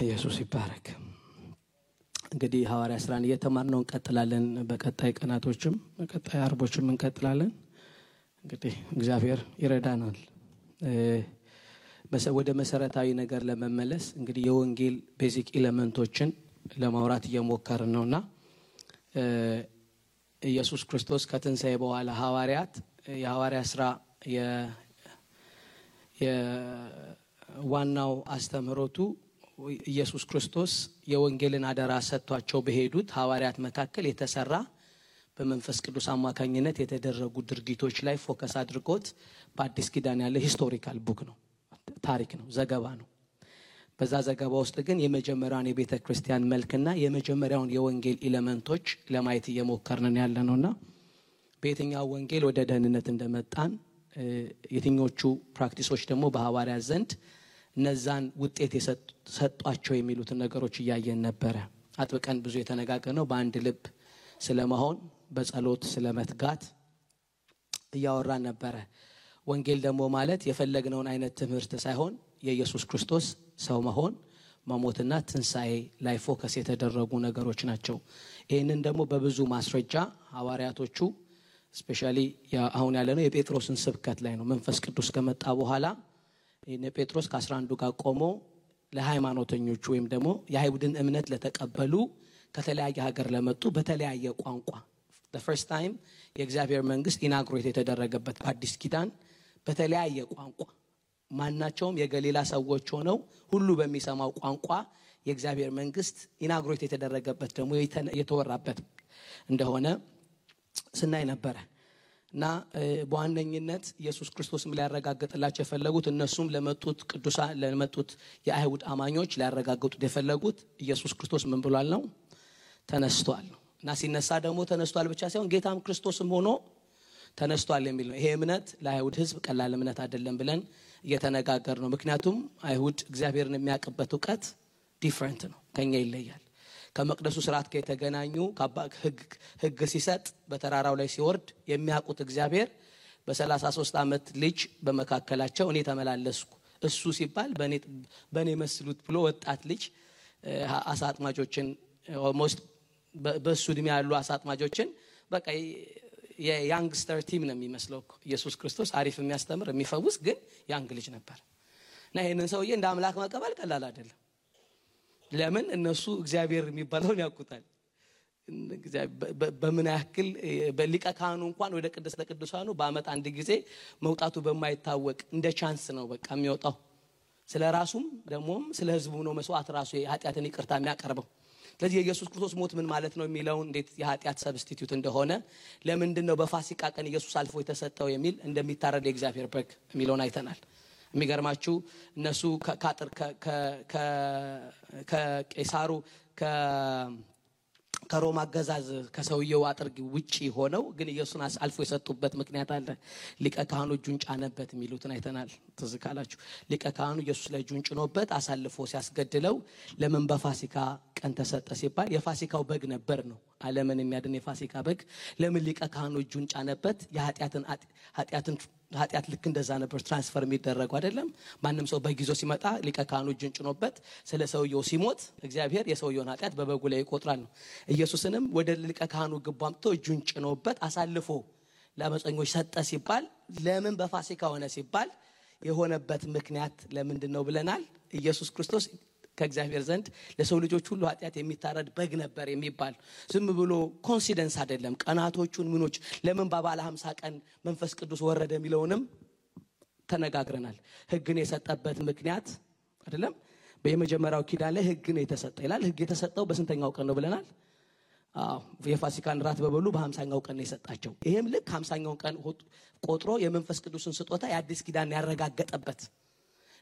ኢየሱስ ይባረክ። እንግዲህ ሐዋርያ ሥራን እየተማርነው እንቀጥላለን። በቀጣይ ቀናቶችም በቀጣይ አርቦችም እንቀጥላለን። እንግዲህ እግዚአብሔር ይረዳናል። ወደ መሰረታዊ ነገር ለመመለስ እንግዲህ የወንጌል ቤዚክ ኤሌመንቶችን ለማውራት እየሞከርን ነውና ኢየሱስ ክርስቶስ ከትንሣኤ በኋላ ሐዋርያት የሐዋርያ ሥራ የዋናው አስተምህሮቱ ኢየሱስ ክርስቶስ የወንጌልን አደራ ሰጥቷቸው በሄዱት ሐዋርያት መካከል የተሰራ በመንፈስ ቅዱስ አማካኝነት የተደረጉ ድርጊቶች ላይ ፎከስ አድርጎት በአዲስ ኪዳን ያለ ሂስቶሪካል ቡክ ነው፣ ታሪክ ነው፣ ዘገባ ነው። በዛ ዘገባ ውስጥ ግን የመጀመሪያውን የቤተ ክርስቲያን መልክና የመጀመሪያውን የወንጌል ኤሌመንቶች ለማየት እየሞከርን ያለነውና በየትኛው ወንጌል ወደ ደህንነት እንደመጣን የትኞቹ ፕራክቲሶች ደግሞ በሐዋርያት ዘንድ እነዛን ውጤት የሰጧቸው የሚሉትን ነገሮች እያየን ነበረ። አጥብቀን ብዙ የተነጋገርነው በአንድ ልብ ስለመሆን በጸሎት ስለመትጋት እያወራን ነበረ። ወንጌል ደግሞ ማለት የፈለግነውን አይነት ትምህርት ሳይሆን የኢየሱስ ክርስቶስ ሰው መሆን መሞትና ትንሣኤ ላይ ፎከስ የተደረጉ ነገሮች ናቸው። ይህንን ደግሞ በብዙ ማስረጃ ሐዋርያቶቹ ስፔሻሊ አሁን ያለነው የጴጥሮስን ስብከት ላይ ነው። መንፈስ ቅዱስ ከመጣ በኋላ እነ ጴጥሮስ ከ11 ጋር ቆሞ ለሃይማኖተኞቹ ወይም ደግሞ የአይሁድን እምነት ለተቀበሉ ከተለያየ ሀገር ለመጡ በተለያየ ቋንቋ the first time የእግዚአብሔር መንግስት ኢናግሬት የተደረገበት በአዲስ ኪዳን በተለያየ ቋንቋ ማናቸውም የገሊላ ሰዎች ሆነው ሁሉ በሚሰማው ቋንቋ የእግዚአብሔር መንግስት ኢናግሬት የተደረገበት ደግሞ የተወራበት እንደሆነ ስናይ ነበር። እና በዋነኝነት ኢየሱስ ክርስቶስም ሊያረጋግጥላቸው የፈለጉት እነሱም ለመጡት ቅዱሳን ለመጡት የአይሁድ አማኞች ሊያረጋግጡት የፈለጉት ኢየሱስ ክርስቶስ ምን ብሏል ነው? ተነስቷል። እና ሲነሳ ደግሞ ተነስቷል ብቻ ሳይሆን ጌታም ክርስቶስም ሆኖ ተነስቷል የሚል ነው። ይሄ እምነት ለአይሁድ ህዝብ ቀላል እምነት አይደለም ብለን እየተነጋገር ነው። ምክንያቱም አይሁድ እግዚአብሔርን የሚያውቁበት ዕውቀት ዲፈረንት ነው፣ ከኛ ይለያል። ከመቅደሱ ስርዓት ጋር የተገናኙ ህግ ሲሰጥ በተራራው ላይ ሲወርድ የሚያውቁት እግዚአብሔር በ33 ዓመት ልጅ በመካከላቸው እኔ ተመላለስኩ እሱ ሲባል በኔ መስሉት ብሎ ወጣት ልጅ አሳጥማጆችን ኦልሞስት በሱ እድሜ ያሉ አሳጥማጆችን በቃ የያንግስተር ቲም ነው የሚመስለው ኢየሱስ ክርስቶስ አሪፍ የሚያስተምር የሚፈውስ ግን ያንግ ልጅ ነበር። እና ይሄንን ሰውዬ እንደ አምላክ መቀበል ቀላል አይደለም። ለምን እነሱ እግዚአብሔር የሚባለውን ያውቁታል። በምን ያክል በሊቀ ካህኑ እንኳን ወደ ቅድስተ ቅዱሳኑ በአመት አንድ ጊዜ መውጣቱ በማይታወቅ እንደ ቻንስ ነው በቃ የሚወጣው። ስለራሱም ደግሞም ስለ ህዝቡ ነው መስዋዕት ራሱ የኃጢአትን ይቅርታ የሚያቀርበው። ስለዚህ የኢየሱስ ክርስቶስ ሞት ምን ማለት ነው የሚለውን እንዴት የኃጢአት ሰብስቲቲዩት እንደሆነ ለምንድነው በፋሲካ ቀን ኢየሱስ አልፎ የተሰጠው የሚል እንደሚታረድ የእግዚአብሔር በግ የሚለውን አይተናል። የሚገርማችሁ እነሱ ከአጥር ከቄሳሩ ከሮማ አገዛዝ ከሰውየው አጥር ውጪ ሆነው ግን ኢየሱስን አልፎ የሰጡበት ምክንያት አለ። ሊቀ ካህኑ እጁን ጫነበት የሚሉትን አይተናል። ትዝ ካላችሁ ሊቀ ካህኑ ኢየሱስ ላይ እጁን ጭኖበት አሳልፎ ሲያስገድለው ለምን በፋሲካ ቀን ተሰጠ ሲባል የፋሲካው በግ ነበር ነው። ዓለምን የሚያድን የፋሲካ በግ ለምን ሊቀ ካህኑ እጁን ጫነበት? ኃጢአት ልክ እንደዛ ነበር ትራንስፈር የሚደረገው አይደለም። ማንም ሰው በጊዜው ሲመጣ ሊቀ ካህኑ እጁን ጭኖበት ስለ ሰውየው ሲሞት እግዚአብሔር የሰውየውን ኃጢአት በበጉ ላይ ይቆጥራል ነው። ኢየሱስንም ወደ ሊቀ ካህኑ ግባምቶ እጁን ጭኖበት አሳልፎ ለአመፀኞች ሰጠ ሲባል ለምን በፋሲካ ሆነ ሲባል የሆነበት ምክንያት ለምንድነው ብለናል። ኢየሱስ ክርስቶስ ከእግዚአብሔር ዘንድ ለሰው ልጆች ሁሉ ኃጢአት የሚታረድ በግ ነበር የሚባል ዝም ብሎ ኮንሲደንስ አይደለም። ቀናቶቹን ምኖች ለምን በባለ 50 ቀን መንፈስ ቅዱስ ወረደ የሚለውንም ተነጋግረናል። ህግን የሰጠበት ምክንያት አይደለም። በየመጀመሪያው ኪዳን ላይ ህግን የተሰጠ ይላል። ህግ የተሰጠው በስንተኛው ቀን ነው ብለናል? የፋሲካን ራት በበሉ በ50ኛው ቀን ነው የሰጣቸው። ይሄም ልክ 50ኛው ቀን ቆጥሮ የመንፈስ ቅዱስን ስጦታ የአዲስ ኪዳን ያረጋገጠበት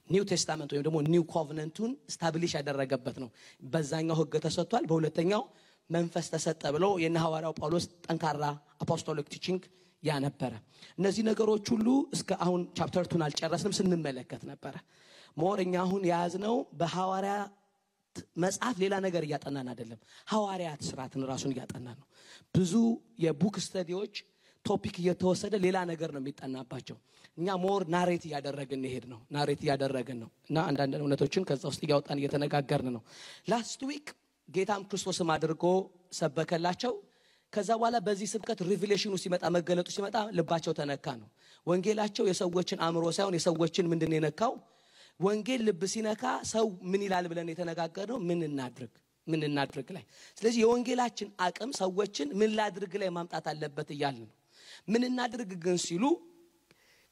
ኒው ቴስታመንት ወይም ደግሞ ኒው ኮቨናንቱን ስታብሊሽ ያደረገበት ነው። በዛኛው ህግ ተሰጥቷል፣ በሁለተኛው መንፈስ ተሰጠ ብሎ የሐዋርያው ጳውሎስ ጠንካራ አፖስቶሊክ ቲቺንግ ያነበረ። እነዚህ ነገሮች ሁሉ እስከ አሁን ቻፕተር 2 አልጨረስንም ስንመለከት ነበር። ሞርኛ አሁን ያዝነው በሐዋርያ መጽሐፍ ሌላ ነገር እያጠናን አይደለም። ሐዋርያት ስራትን ራሱን እያጠናን ነው። ብዙ የቡክ ስተዲዎች ቶፒክ እየተወሰደ ሌላ ነገር ነው የሚጠናባቸው እኛ ሞር ናሬት ያደረግን ነው እና አንዳንድ እውነቶችን ከዛ ውስጥ ያወጣን እየተነጋገርን ነው ላስት ዊክ ጌታም ክርስቶስም አድርጎ ሰበከላቸው ከዛ በኋላ በዚህ ስብከት ሪቪሌሽኑ ሲመጣ መገለጡ ሲመጣ ልባቸው ተነካ ነው ወንጌላቸው የሰዎችን አእምሮ ሳይሆን የሰዎችን ምንድነው የነካው ወንጌል ልብ ሲነካ ሰው ምን ይላል ብለን የተነጋገርነው ምን እናድርግ ላይ ስለዚህ የወንጌላችን አቅም ሰዎችን ምን ላድርግ ላይ ማምጣት አለበት ይያልን ነው ምን እናድርግ ግን ሲሉ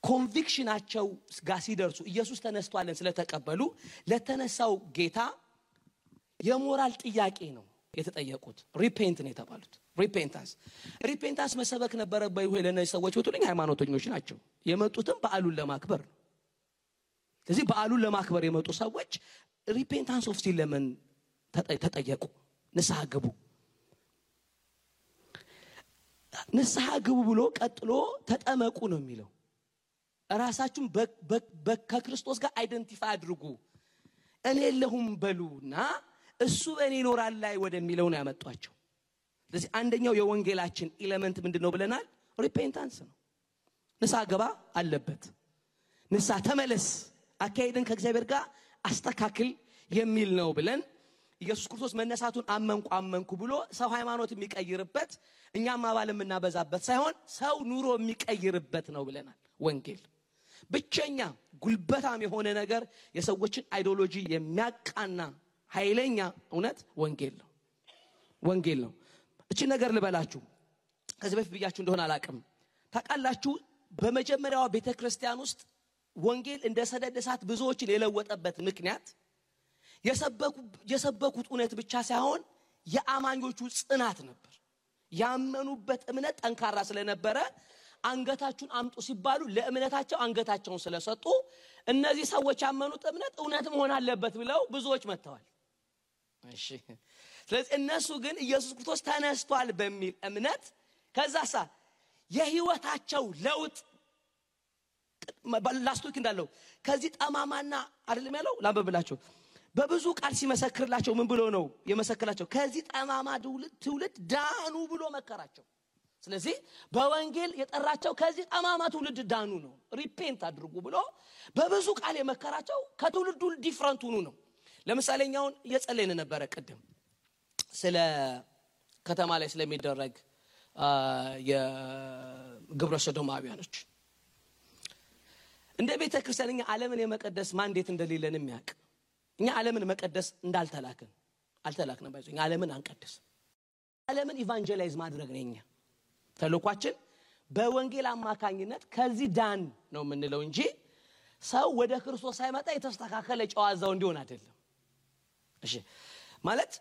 ኮንቪክሽናቸው ጋር ሲደርሱ ኢየሱስ ተነስቷልን ስለተቀበሉ ለተነሳው ጌታ የሞራል ጥያቄ ነው የተጠየቁት ሪፔንት ነው የተባሉት ሪፔንታንስ መሰበክ ነበረ ለነዚህ ሰዎች ወጡልኝ ሃይማኖተኞች ናቸው የመጡትም በዓሉን ለማክበር ነው ስለዚህ በዓሉን ለማክበር የመጡ ሰዎች ሪፔንታንስ ኦፍ ሲን ለምን ተጠየቁ ንስሐ ግቡ ብሎ ቀጥሎ ተጠመቁ ነው የሚለው ራሳችሁን ከክርስቶስ ጋር አይደንቲፋይ አድርጉ እኔ የለሁም በሉና እሱ በእኔ ይኖራል ላይ ወደሚለው ነው ያመጣቸው ስለዚህ አንደኛው የወንጌላችን ኤሌመንት ምንድነው ብለናል ሪፔንታንስ ነው ንስሐ ገባ አለበት ንስሐ ተመለስ አካሄድን ከእግዚአብሔር ጋር አስተካክል የሚል ነው ብለን ኢየሱስ ክርስቶስ መነሳቱን አመንኩ ብሎ ሰው ሃይማኖት የሚቀይርበት እኛም አባል የምናበዛበት ሳይሆን ሰው ኑሮ የሚቀይርበት ነው ብለናል ወንጌል ብቸኛ ጉልበታም የሆነ ነገር የሰዎችን አይዲዮሎጂ የሚያቃና ኃይለኛ እውነት ወንጌል ነው እቺ ነገር ልበላችሁ ከዚህ በፊት ብያችሁ እንደሆነ አላቅም ታቃላችሁ በመጀመሪያው ቤተክርስቲያን ውስጥ ወንጌል እንደ ሰደድ እሳት ብዙዎችን የለወጠበት ምክንያት የሰበኩት እውነት ብቻ ሳይሆን የአማኞቹ ጽናት ነበር ያመኑበት እምነት ጠንካራ ስለነበረ አንገታችሁን አምጡ ሲባሉ ለእምነታቸው አንገታቸውን ስለሰጡ እነዚህ ሰዎች ያመኑት እምነት እውነት መሆን አለበት ብለው ብዙዎች መተዋል እሺ ስለዚህ እነሱ ግን ኢየሱስ ክርስቶስ ተነስቷል በሚል እምነት ከዛሳ የህይወታቸው ለውጥ ላስቶክ እንዳለው ከዚህ ጠማማና አይደለም ያለው ላንበብላችሁ በብዙ ቃል ሲመሰክርላቸው ምን ብሎ ነው የመሰከላቸው ከዚህ ጠማማ ትውልድ ዳኑ ብሎ መከራቸው ስለዚህ በወንጌል የጠራቸው ከዚህ ጠማማ ትውልድ ዳኑ ነው ሪፔንት አድርጉ ብሎ በብዙ ቃል የመከራቸው ከትውልዱ ዲፈረንት ሆኑ ነው ለምሳሌኛውን እየጸለይን ነበር ቀደም ስለ ከተማ ላይ ስለሚደረግ የግብረ ሰዶማውያኖች እንደ ቤተክርስቲያንኛ ዓለምን የመቀደስ ማንዴት እንደሌለን የሚያውቅ እኛ ዓለምን መቀደስ አልተላክንም ባይዘኝ ዓለምን አንቀደስ ዓለምን ኢቫንጀላይዝ ማድረግ ነውኛ ተልኳችን በወንጌል አማካኝነት ከዚህ ዳን ነው የምንለው እንጂ ሰው ወደ ክርስቶስ ሳይመጣ የተስተካከለ ጨዋዛው እንዲሆን አይደለም እሺ ማለት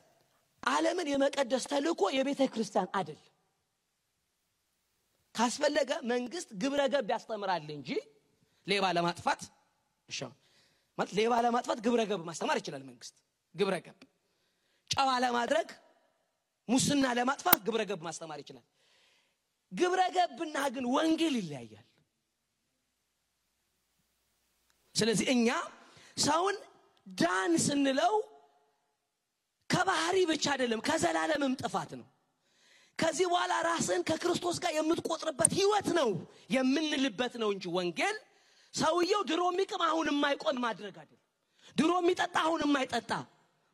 ዓለምን የመቀደስ ተልኮ የቤተክርስቲያን አይደል ካስፈለገ መንግስት ግብረ ገብ ያስተምራል እንጂ ሌባ ለማጥፋት እሺ ማለት ሌባ ለማጥፋት ግብረ ገብ ማስተማር ይችላል መንግስት ግብረ ገብ ጨዋ ለማድረግ ሙስና ለማጥፋት ግብረ ገብ ማስተማር ይችላል ግብረ ገብና ግን ወንጌል ይለያያል ስለዚህ እኛ ሰውን ዳን ስንለው ከባህሪ ብቻ አይደለም ከዘላለምም ጥፋት ነው ከዚህ በኋላ ራስን ከክርስቶስ ጋር የምትቆጥርበት ህይወት ነው የምንልበት ነው እንጂ ወንጌል ሰውየው ድሮ የሚቅም አሁን የማይቆም ማድረግ አይደለም ድሮ የሚጠጣ አሁን የማይጠጣ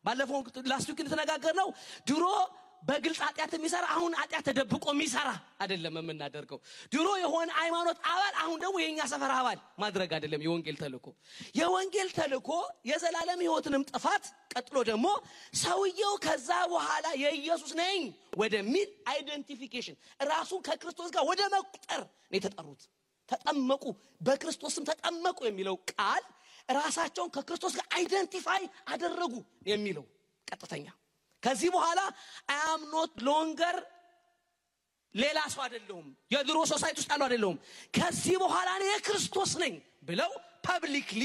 ባለፈው ላስቱክ ተነጋገርነው ድሮ በግልጽ ኃጢአት የሚሰራ አሁን ኃጢአት ተደብቆ የሚሰራ አይደለም የምናደርገው ድሮ የሆነ ሃይማኖት አባል አሁን ደግሞ የኛ ሰፈር አባል ማድረግ አይደለም የወንጌል ተልኮ የዘላለም ህይወትንም ጥፋት ቀጥሎ ደግሞ ሰውየው ከዛ በኋላ የኢየሱስ ነኝ ወደሚል አይደንቲፊኬሽን ራሱን ከክርስቶስ ጋር ወደ መቁጠር ነው የተጠሩት ተጠመቁ በክርስቶስም ተጠመቁ የሚለው ቃል ራሳቸውን ከክርስቶስ ጋር አይደንቲፋይ አደረጉ የሚለው ቀጥተኛ ከዚህ በኋላ I am not longer ሌላ ሰው አይደለሁም የድሮ ሶሳይቲ ውስጥ አይደለሁም ከዚህ በኋላ እኔ የክርስቶስ ነኝ ብለው ፐብሊክሊ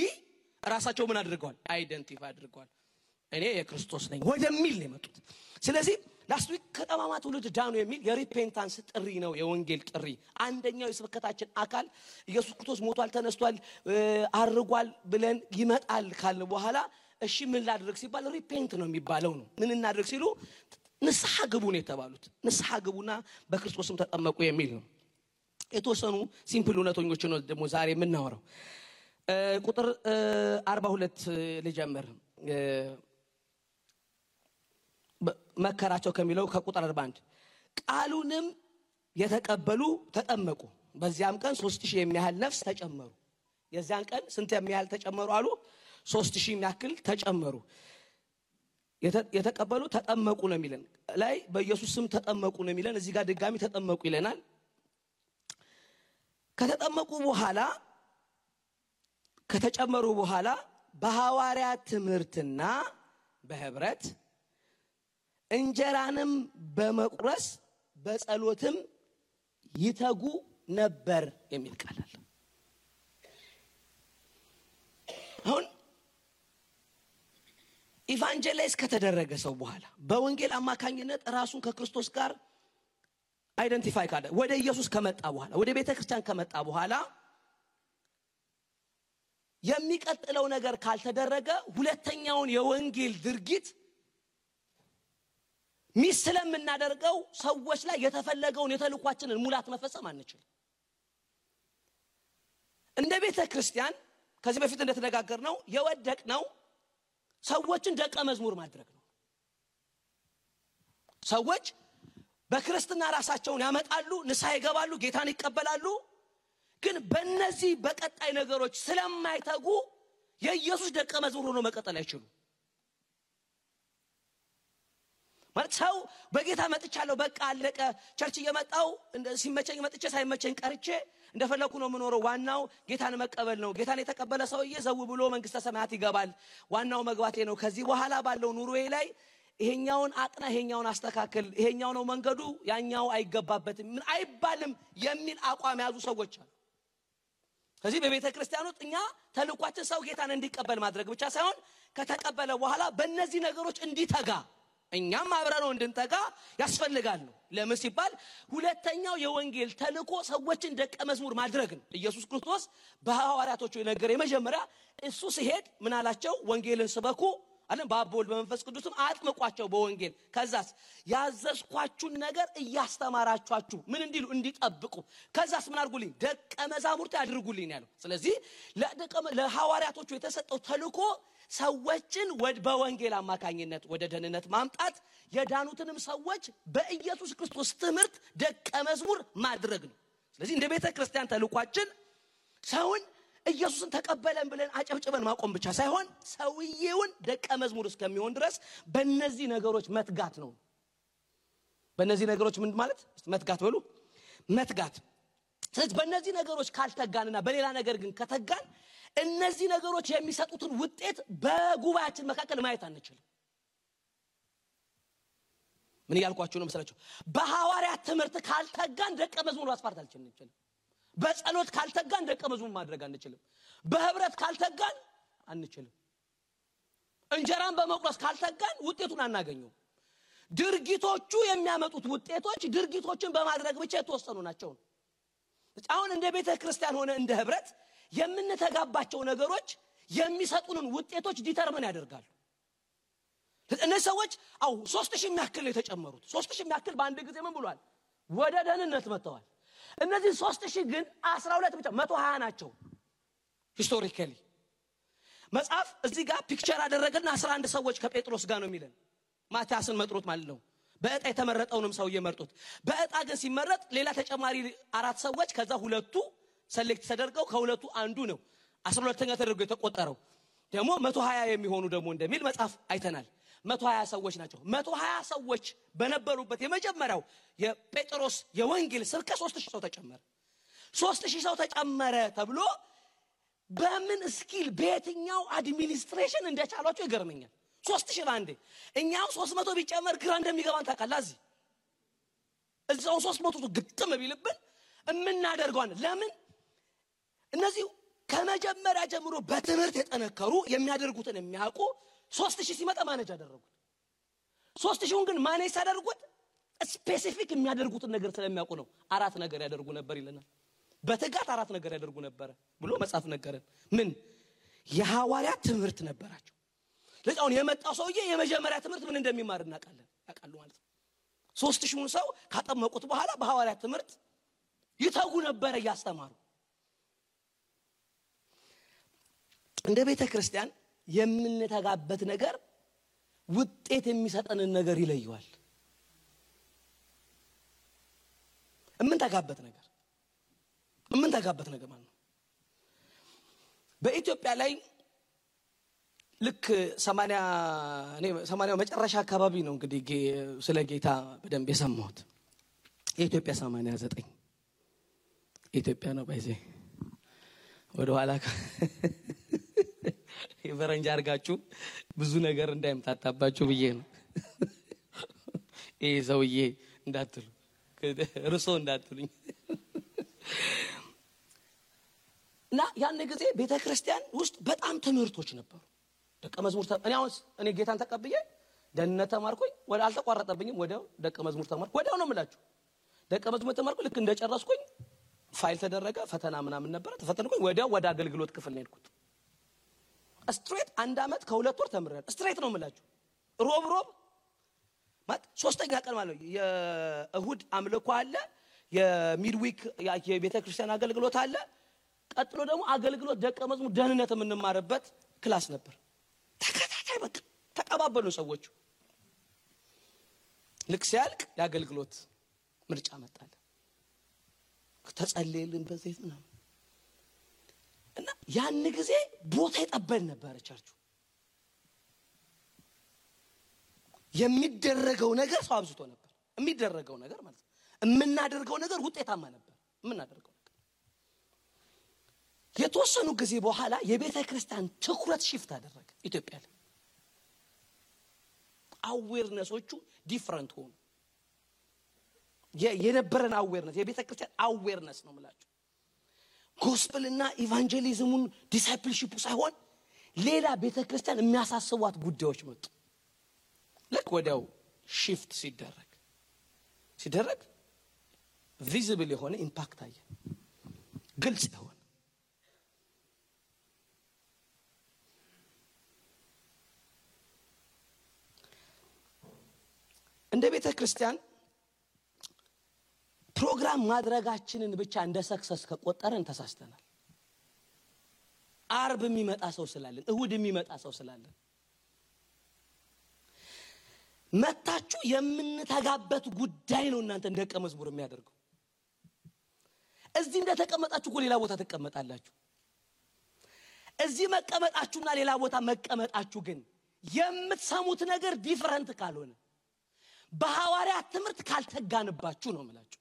ራሳቸው ምን አድርገዋል አይደንቲፋይ አድርገዋል እኔ የክርስቶስ ነኝ ወደሚል ነው የመጡት ስለዚህ ላስት ዊክ ከጠማማ ትውልድ ዳኑ የሚል የሪፔንታንስ ጥሪ ነው የወንጌል ጥሪ አንደኛው የስብከታችን አካል ኢየሱስ ክርስቶስ ሞቷል ተነስቷል አርጓል ብለን ይመጣል ካልን በኋላ እሺ ምን ላድርግ ሲባል ሪፔንት ነው የሚባለው ነው ምን እናድርግ ሲሉ ንስሐ ግቡ ነው የተባሉት ንስሐ ግቡና በክርስቶስም ተጠመቁ የሚል ነው የተወሰኑ ሲምፕል እውነቶች ነው ደግሞ ዛሬ የምናወራው። ቁጥር 42 ልጀምር። መከራቸው ከሚለው ከቁጥር 41 ቃሉንም የተቀበሉ ተጠመቁ፣ በዚያም ቀን 3000 የሚያህል ነፍስ ተጨመሩ። የዚያን ቀን ስንት የሚያህል ተጨመሩ አሉ? 3000 የሚያክል ተጨመሩ። የተቀበሉ ተጠመቁ ነው የሚለን ላይ በኢየሱስ ስም ተጠመቁ ነው የሚለን። እዚህ ጋር ድጋሚ ተጠመቁ ይለናል። ከተጠመቁ በኋላ ከተጨመሩ በኋላ በሐዋርያት ትምህርትና በህብረት እንጀራንም በመቁረስ በጸሎትም ይተጉ ነበር የሚል ቃል አለ። አሁን ኢቫንጀላይዝ ከተደረገ ሰው በኋላ በወንጌል አማካኝነት ራሱን ከክርስቶስ ጋር አይደንቲፋይ ካደ ወደ ኢየሱስ ከመጣ በኋላ ወደ ቤተክርስቲያን ከመጣ በኋላ የሚቀጥለው ነገር ካልተደረገ ሁለተኛውን የወንጌል ድርጊት ስለምናደርገው ሰዎች ላይ የተፈለገውን የተልኳችንን ሙላት መፈጸም አንችልም። እንደ ቤተክርስቲያን ከዚህ በፊት እንደተነጋገርነው የወደቅነው ሰዎችን ደቀ መዝሙር ማድረግ ነው። ሰዎች በክርስትና ራሳቸውን ያመጣሉ፣ ንስሐ ይገባሉ፣ ጌታን ይቀበላሉ። ግን በእነዚህ በቀጣይ ነገሮች ስለማይተጉ የኢየሱስ ደቀ መዝሙር ሆኖ መቀጠል አይችሉም። ማለት ሰው በጌታ መጥቻለሁ በቃ አለቀ፣ ቸርች እየመጣው ሲመቸኝ መጥቼ ሳይመቸኝ ቀርቼ እንደፈለኩ ነው የምኖረው፣ ዋናው ጌታን መቀበል ነው፣ ጌታን የተቀበለ ሰውዬ ዘው ብሎ መንግስተ ሰማያት ይገባል፣ ዋናው መግባቴ ነው፣ ከዚህ በኋላ ባለው ኑሮዬ ላይ ይሄኛውን አጥና፣ ይሄኛውን አስተካክል፣ ይሄኛው ነው መንገዱ፣ ያኛው አይገባበትም ምን አይባልም የሚል አቋም ያዙ ሰዎች አሉ። ስለዚህ በቤተ ክርስቲያኖት እኛ ተልኳችን ሰው ጌታን እንዲቀበል ማድረግ ብቻ ሳይሆን ከተቀበለ በኋላ በእነዚህ ነገሮች እንዲተጋ እኛም አብረነው እንድንተጋ ያስፈልጋል ነው። ለምን ሲባል ሁለተኛው የወንጌል ተልኮ ሰዎችን ደቀ መዝሙር ማድረግ ነው። ኢየሱስ ክርስቶስ በሐዋርያቶቹ የነገረ የመጀመሪያ እሱ ሲሄድ ምን አላቸው? ወንጌልን ስበኩ አለ፣ በአብ ወልድ በመንፈስ ቅዱስም አጥምቋቸው በወንጌል። ከዛስ ያዘዝኳችሁን ነገር እያስተማራችኋቸው ምን እንዲሉ እንዲጠብቁ፣ ከዛስ ምን አድርጉልኝ? ደቀ መዛሙርት አድርጉልኝ ያለው። ስለዚህ ለሐዋርያቶቹ የተሰጠው ተልኮ ሰዎችን በወንጌል አማካኝነት ወደ ደህንነት ማምጣት፣ የዳኑትንም ሰዎች በኢየሱስ ክርስቶስ ትምህርት ደቀ መዝሙር ማድረግ ነው። ስለዚህ እንደ ቤተ ክርስቲያን ተልኳችን ሰውን ኢየሱስን ተቀበለን ብለን አጨብጭበን ማቆም ብቻ ሳይሆን ሰውየውን ደቀ መዝሙር እስከሚሆን ድረስ በእነዚህ ነገሮች መትጋት ነው። በእነዚህ ነገሮች ምን ማለት መትጋት በሉ መትጋት። ስለዚህ በእነዚህ ነገሮች ካልተጋንና በሌላ ነገር ግን ከተጋን እነዚህ ነገሮች የሚሰጡትን ውጤት በጉባኤያችን መካከል ማየት አንችልም። ምን ያልኳችሁ ነው መሰላችሁ? በሐዋርያት ትምህርት ካልተጋን ደቀ መዝሙር ማስፋት አንችልም። በጸሎት ካልተጋን ደቀ መዝሙር ማድረግ አንችልም። በህብረት ካልተጋን አንችልም። እንጀራን በመቁረስ ካልተጋን ውጤቱን አናገኘው። ድርጊቶቹ የሚያመጡት ውጤቶች ድርጊቶችን በማድረግ ብቻ የተወሰኑ ናቸው። አሁን እንደ ቤተ ክርስቲያን ሆነ እንደ ህብረት የምንተጋባቸው ነገሮች የሚሰጡንን ውጤቶች ዲተርሚን ያደርጋሉ። እነዚህ ሰዎች 3000 የሚያክል ነው የተጨመሩት። 3000 የሚያክል በአንድ ጊዜ ምን ብሏል? ወደ ደህንነት መጥተዋል። እነዚህ 3000 ግን 12 ብቻ 120 ናቸው። ሂስቶሪካሊ መጽሐፍ እዚህ ጋር ፒክቸር አደረገና 11 ሰዎች ከጴጥሮስ ጋር ነው የሚለን። ማቲያስን መጥሮት ማለት ነው። በእጣ የተመረጠውንም ሰው እየመርጡት። በእጣ ግን ሲመረጥ ሌላ ተጨማሪ 4 ሰዎች ከዛ ሁለቱ ሰሌክት ተደርገው ከሁለቱ አንዱ ነው 12ኛ ተደርጎ የተቆጠረው። ደግሞ 120 የሚሆኑ ደግሞ እንደሚል መጽሐፍ አይተናል። 120 ሰዎች ናቸው። 120 ሰዎች በነበሩበት የመጀመሪያው የጴጥሮስ የወንጌል ስብከት 3000 ሰው ተጨመረ። 3000 ሰው ተጨመረ ተብሎ በምን ስኪል በየትኛው አድሚኒስትሬሽን እንደቻሏቸው ይገርመኛል። 3000 ባንዴ እኛው 300 ቢጨመር ግራ እንደሚገባን ታውቃላችሁ። እዛው 300 ግጥም ቢልብን እምናደርገዋን ለምን እነዚህ ከመጀመሪያ ጀምሮ በትምህርት የተነከሩ የሚያደርጉትን የሚያውቁ 3000 ሲመጣ ማኔጅ አደረጉት። 3000ን ግን ማኔጅ ያደርጉት ስፔሲፊክ የሚያደርጉትን ነገር ስለሚያውቁ ነው። 4 ነገር ያደርጉ ነበር ይለናል። በትጋት 4 ነገር ያደርጉ ነበር ብሎ መጽሐፍ ነገረን። ምን የሐዋርያት ትምህርት ነበራቸው። ለዛውን የመጣው ሰውዬ የመጀመሪያ ትምህርት ምን እንደሚማር እናውቃለን። ያውቃሉ ማለት ነው። 3000ን ሰው ካጠመቁት በኋላ በሐዋርያት ትምህርት ይተጉ ነበር ያስተማሩ። እንደ ቤተ ክርስቲያን የምንተጋበት ነገር ውጤት የሚሰጠንን ነገር ይለየዋል። የምንተጋበት ነገር ማለት ነው። በኢትዮጵያ ላይ ልክ 80 መጨረሻ አካባቢ ነው እንግዲህ ስለ ጌታ በደንብ የሰማሁት። የኢትዮጵያ 89 ኢትዮጵያ ነው ባይዘ ወደ ኋላ የፈረንጅ አርጋችሁ ብዙ ነገር እንዳይምታታባችሁ ብዬ ነው። ይሄ ሰውዬ እንዳትሉ ርሶ እንዳትሉኝ። እና ያን ጊዜ ቤተክርስቲያን ውስጥ በጣም ትምህርቶች ነበሩ። ደቀ መዝሙር እኔ ጌታን ተቀብዬ ደህንነት ተማርኩኝ፣ ወደ አልተቋረጠብኝም። ወዲያው ደቀ መዝሙር ተማርኩ። ወዲያው ነው የምላችሁ ደቀ መዝሙር ተማርኩ። ልክ እንደጨረስኩኝ ፋይል ተደረገ፣ ፈተና ምናምን ነበር፣ ተፈተንኩኝ። ወዲያው ወደ አገልግሎት ክፍል ነው የሄድኩት። ስትሬት 1 አመት ከ2 ወር ተምሬያለሁ። ስትሬት ነው የምላችሁ። ሮብ ማለት 3ኛ ቀን ማለት ነው። የእሁድ አምልኮ አለ፣ የሚድዊክ የቤተክርስቲያን አገልግሎት አለ። ቀጥሎ ደግሞ አገልግሎት ደቀ መዝሙር ደህንነት የምንማርበት ክላስ ነበር። ተከታታይ በቃ ተቀባበሉ ሰዎቹ። ልክ ሲያልቅ የአገልግሎት ምርጫ መጣለ። ተጸልየልን በዘይት ምናምን እና ያን ጊዜ ቦታ ይጠበል ነበር። ቸርቹ የሚደረገው ነገር ሰው አብዝቶ ነበር። የሚደረገው ነገር ማለት ነው የምናደርገው ነገር ውጤታማ ነበር። የምናደርገው ነገር የተወሰኑ ጊዜ በኋላ የቤተ ክርስቲያን ትኩረት ሽፍት አደረገ ኢትዮጵያ ላይ። አዌርነሶቹ ዲፈረንት ሆኑ። የነበረን አዌርነስ የቤተ ክርስቲያን አዌርነስ ነው ማለት ጎስፔልና ኢቫንጀሊዝሙን ዲሳይፕልሺፑ ሳይሆን ሌላ ቤተ ክርስቲያን የሚያሳስቧት ጉዳዮች መጡ። ልክ ወዲያው ሽፍት ሲደረግ ቪዚብል የሆነ ኢምፓክት አየ፣ ግልጽ የሆነ እንደ ቤተ ክርስቲያን ፕሮግራም ማድረጋችንን ብቻ እንደ ሰክሰስ ከቆጠረን ተሳስተናል። አርብ የሚመጣ ሰው ስላለን፣ እሁድ የሚመጣ ሰው ስላለን መታችሁ የምንተጋበት ጉዳይ ነው እናንተ ደቀ መዝሙር የሚያደርገው። እዚህ እንደተቀመጣችሁ ሌላ ቦታ ተቀመጣላችሁ። እዚህ መቀመጣችሁና ሌላ ቦታ መቀመጣችሁ ግን የምትሰሙት ነገር ዲፈረንት ካልሆነ በሐዋርያት ትምህርት ካልተጋንባችሁ ነው የምላችሁ።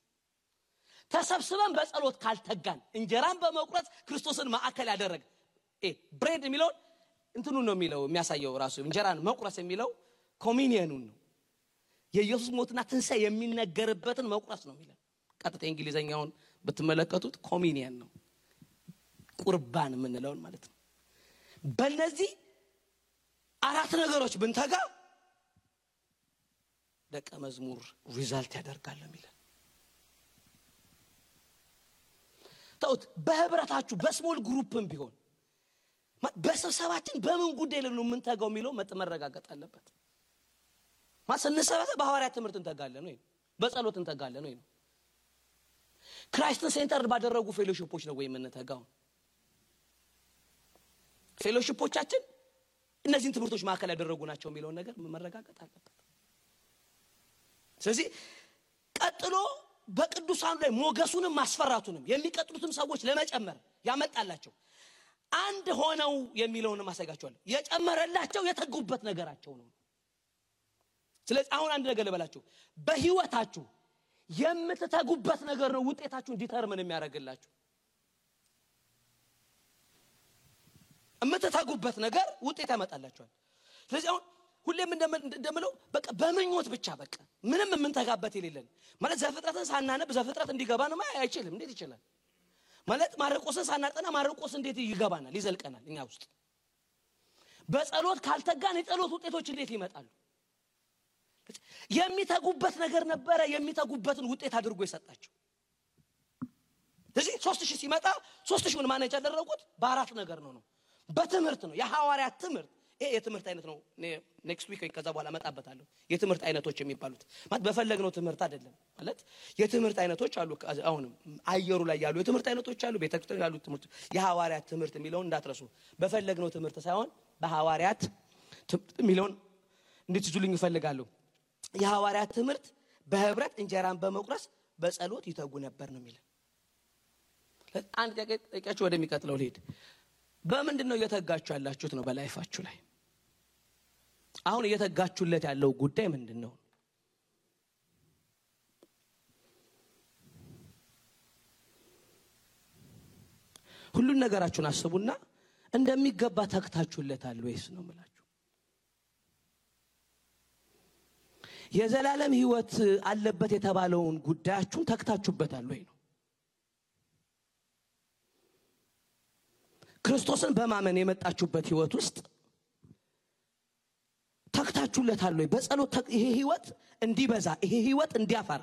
ተሰብስበን በጸሎት ካልተጋን እንጀራን በመቁረጥ ክርስቶስን ማዕከል ያደረገ ብሬድ የሚለው እንትኑ ነው የሚለው የሚያሳየው ራሱ እንጀራን መቁረስ የሚለው ኮሚኒየኑን ነው። የኢየሱስ ሞትና ትንሣኤ የሚነገርበትን መቁረስ ነው የሚለው። ቀጥታ እንግሊዘኛውን ብትመለከቱት ኮሚኒየን ነው፣ ቁርባን የምንለው ማለት ነው። በእነዚህ 4 ነገሮች ብንተጋ ደቀ መዝሙር ሪዛልት ያደርጋል የሚለው። ታውት በህብረታችሁ በስሞል ግሩፕም ቢሆን በስብሰባችን በምን ጉዳይ ላይ ነው የምንተጋው የሚለው መረጋገጥ አለበት። ማሰነሰበተ በሐዋርያት ትምህርት እንተጋለን ወይ በጸሎት እንተጋለን ወይ ነው? ክራይስትን ሴንተር ባደረጉ ፌሎሺፖች ነው ወይ የምንተጋው? ፌሎሺፖቻችን እነዚህን ትምህርቶች ማዕከል ያደረጉ ናቸው የሚለው ነገር መረጋገጥ አለበት። ስለዚህ ቀጥሎ በቅዱሳኑ ላይ ሞገሱንም ማስፈራቱንም የሚቀጥሉትም ሰዎች ለመጨመር ያመጣላቸው አንድ ሆነው የሚለውን ማሳያቸዋለሁ። የጨመረላቸው የተጉበት ነገራቸው ነው። ስለዚህ አሁን አንድ ነገር ልበላችሁ፣ በህይወታችሁ የምትተጉበት ነገር ነው ውጤታችሁን ዲተርሚን የሚያደርግላችሁ። የምትተጉበት ነገር ውጤት ያመጣላችኋል። ስለዚህ አሁን ሁሌም እንደምለው በቃ በመኞት ብቻ በቃ ምንም የምንተጋበት የሌለን ማለት ዘፍጥረትን ሳናነብ ዘፍጥረት እንዲገባ ነው አይችልም። እንዴት ይችላል? ማለት ማርቆስን ሳናጠና ማርቆስ እንዴት ይገባናል ይዘልቀናል እኛ ውስጥ? በጸሎት ካልተጋን የጸሎት ውጤቶች እንዴት ይመጣሉ? የሚተጉበት ነገር ነበረ። የሚተጉበትን ውጤት አድርጎ ይሰጣቸው። ስለዚህ 3000 ሲመጣ 3000ን ማኔጅ ያደረጉት በ4 ነገር ነው። በትምህርት ነው። የሐዋርያት ትምህርት ይሄ የትምህርት አይነት ነው። ኔክስት ዊክ ከዛ በኋላ መጣበታለሁ። የትምህርት አይነቶች የሚባሉት ማለት በፈለግነው ትምህርት አይደለም ማለት የትምህርት አይነቶች አሉ። አሁንም አየሩ ላይ ያሉ የትምህርት አይነቶች አሉ። ቤተክርስቲያን ያሉ ትምህርት የሐዋርያት ትምህርት የሚለውን እንዳትረሱ። በፈለግነው ትምህርት ሳይሆን በሐዋርያት ትምህርት የሚለውን እንድትይዙልኝ እፈልጋለሁ። የሐዋርያት ትምህርት በህብረት እንጀራን በመቁረስ በጸሎት ይተጉ ነበር ነው የሚለው። አንድ ጠቂያችሁ ወደሚቀጥለው ልሄድ። በምንድነው እየተጋችሁ ያላችሁት ነው በላይፋችሁ ላይ? አሁን እየተጋችሁለት ያለው ጉዳይ ምንድነው? ሁሉን ነገራችሁን አስቡና እንደሚገባ ተግታችሁለታል ወይስ ነው ማለት? የዘላለም ህይወት አለበት የተባለውን ጉዳያችሁን ተግታችሁበታል ወይ ነው? ክርስቶስን በማመን የመጣችሁበት ህይወት ውስጥ ተግታችሁለታል ወይ? በጸሎት ይሄ ህይወት እንዲበዛ፣ ይሄ ህይወት እንዲያፈራ፣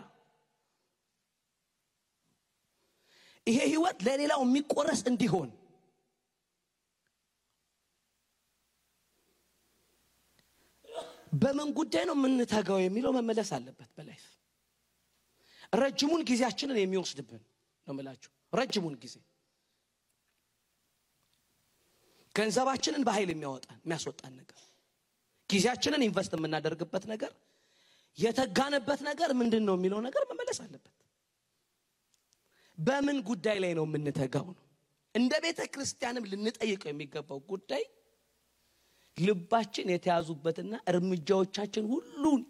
ይሄ ህይወት ለሌላው የሚቆረስ እንዲሆን በምን ጉዳይ ነው የምንተጋው የሚለው መመለስ አለበት። በላይፍ ረጅሙን ጊዜያችንን የሚወስድብን ነው የምላችሁ። ረጅሙን ጊዜ ገንዘባችንን በኃይል የሚያስወጣን ነገር፣ ጊዜያችንን ኢንቨስት የምናደርግበት ነገር፣ የተጋነበት ነገር ምንድነው የሚለው ነገር መመለስ አለበት። በምን ጉዳይ ላይ ነው የምንተጋው ነው። እንደ ቤተ ክርስቲያንም ልንጠይቀው የሚገባው ጉዳይ ልባችን የተያዙበትና እርምጃዎቻችን ሁሉን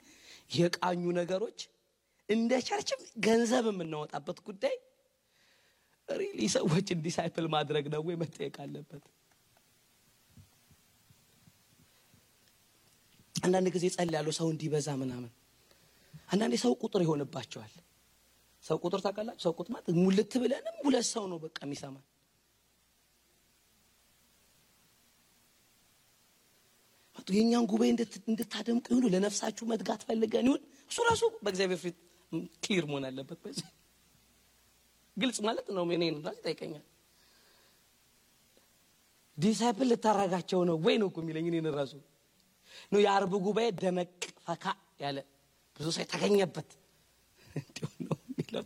የቃኙ ነገሮች እንደ ቸርችም ገንዘብ የምናወጣበት ጉዳይ ሪሊ ሰዎችን ዲሳይፕል ማድረግ ነው ወይ መጠየቅ አለበት። አንዳንድ ጊዜ ጸልያለሁ ሰው እንዲበዛ ምናምን። አንዳንዴ ሰው ቁጥር ይሆንባቸዋል። ሰው ቁጥር ታውቃላችሁ? ሰው ቁጥር ማለት ሙልት ብለንም ሁለት ሰው ነው በቃ የሚሰማን። የኛን ጉባኤ እንድታደምቁ ይሁን ለነፍሳችሁ መትጋት ፈልገን ይሁን እሱ ራሱ በእግዚአብሔር ፊት ክሊር መሆን አለበት። በዚህ ግልጽ ማለት ነው። እኔን ራሱ ጠይቀኛል ዲሳይፕል ልታረጋቸው ነው ወይ ነው የሚለኝ እኔን ራሱ ነው። የአርብ ጉባኤ ደመቅ ፈካ ያለ ብዙ ሰው ተገኘበት ነው የሚለው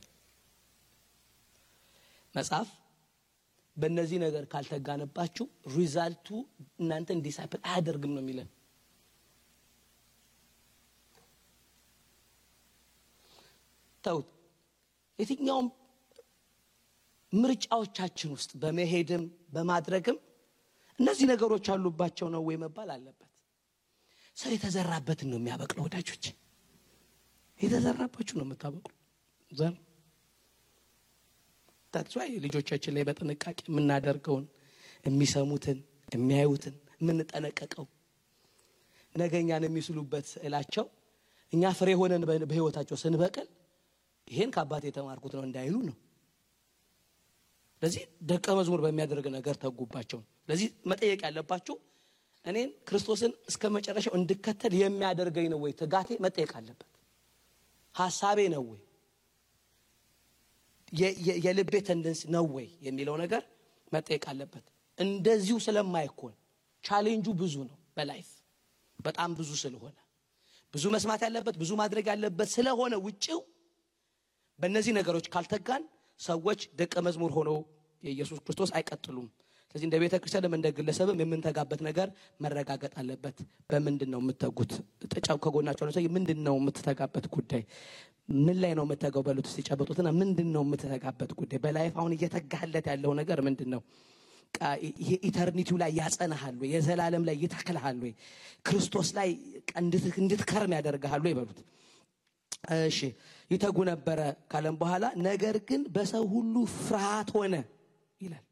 መጽሐፍ። በእነዚህ ነገር ካልተጋነባችሁ ሪዛልቱ እናንተን ዲሳይፕል አያደርግም ነው የሚለን። ተውት። የትኛውም ምርጫዎቻችን ውስጥ በመሄድም በማድረግም እነዚህ ነገሮች አሉባቸው ነው ወይ መባል አለበት። ሰው የተዘራበትን ነው የሚያበቅለው ወዳጆች። የተዘራባችሁ ነው የምታበቅሉ ዘር። ታጥቷይ ልጆቻችን ላይ በጥንቃቄ የምናደርገውን የሚሰሙትን የሚያዩትን የምንጠነቀቀው ነገኛን የሚስሉበት ስዕላቸው እኛ ፍሬ ሆነን በህይወታቸው ስንበቀል ይሄን ከአባቴ የተማርኩት ነው እንዳይሉ ነው። ለዚህ ደቀ መዝሙር በሚያደርግ ነገር ተጉባቸው። ለዚህ መጠየቅ ያለባችሁ እኔን ክርስቶስን እስከመጨረሻው እንድከተል የሚያደርገኝ ነው ወይ? ትጋቴ መጠየቅ አለበት። ሐሳቤ ነው ወይ? የልቤ ተንደንስ ነው ወይ የሚለው ነገር መጠየቅ አለበት። እንደዚሁ ስለማይኮን ቻሌንጁ ብዙ ነው በላይፍ በጣም ብዙ ስለሆነ ብዙ መስማት ያለበት ብዙ ማድረግ ያለበት ስለሆነ ውጪው በእነዚህ ነገሮች ካልተጋን ሰዎች ደቀ መዝሙር ሆነው የኢየሱስ ክርስቶስ አይቀጥሉም። ስለዚህ እንደ ቤተ ክርስቲያንም እንደ ግለሰብም የምንተጋበት ነገር መረጋገጥ አለበት። በምንድነው የምትተጉት? ተጫው ከጎናቸው ነው። ስለዚህ ምንድነው የምትተጋበት ጉዳይ? ምን ላይ ነው የምትተጋው? በሉት ሲጨበጡትና ምንድነው የምትተጋበት ጉዳይ? በላይፍ አሁን እየተጋለት ያለው ነገር ምንድነው? ኢተርኒቲው ላይ ያጸናሃል ወይ? የዘላለም ላይ ይተክልሃል ወይ? ክርስቶስ ላይ እንድትከርም ያደርጋል ወይ? በሉት። እሺ ይተጉ ነበር ካለም በኋላ ነገር ግን በሰው ሁሉ ፍርሃት ሆነ ይላል።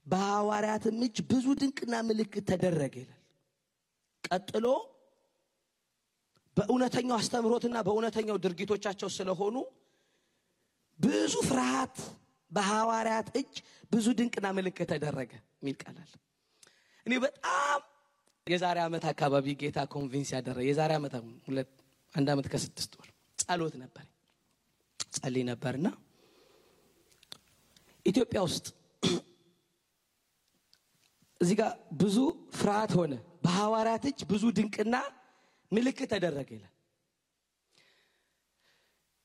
በሐዋርያትም እጅ ብዙ ድንቅና ምልክት ተደረገ ይላል። ቀጥሎ በእውነተኛው አስተምሮትና በእውነተኛው ድርጊቶቻቸው ስለሆኑ ብዙ ፍርሃት በሐዋርያት እጅ ብዙ ድንቅና ምልክት ተደረገ የሚል ቃል አለ። እኔ በጣም የዛሬ ዓመት አካባቢ ጌታ ኮንቪንስ ያደረገ የዛሬ ዓመት አንድ ዓመት ከ6 ወር ጸሎት ነበር ጸልይ ነበርና ኢትዮጵያ ውስጥ እዚህ ጋር ብዙ ፍርሃት ሆነ በሐዋርያት እጅ ብዙ ድንቅና ምልክት ተደረገ ይላል።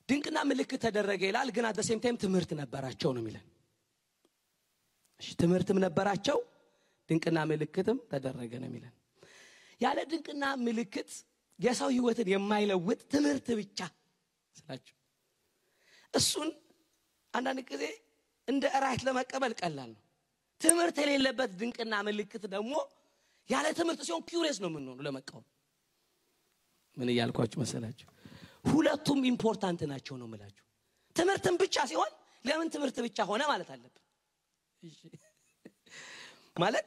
ድንቅና ምልክት ተደረገ ይላል። ግን አት ሴም ታይም ትምህርት ነበራቸው ነው የሚለን። እሺ ትምህርትም ነበራቸው ድንቅና ምልክትም ተደረገ ነው የሚለን። ያለ ድንቅና ምልክት የሰው ህይወትን የማይለውጥ ትምህርት ብቻ ስላችሁ እሱን አንዳንድ ጊዜ እንደ ራይት ለመቀበል ቀላል ነው። ትምህርት የሌለበት ድንቅና ምልክት ደግሞ ያለ ትምህርት ሲሆን ኪዩሪየስ ነው የምንሆነው ለመቃወም። ምን እያልኳችሁ መሰላችሁ? ሁለቱም ኢምፖርታንት ናቸው ነው የምላችሁ። ትምህርትም ብቻ ሲሆን ለምን ትምህርት ብቻ ሆነ ማለት አለበት። እሺ ማለት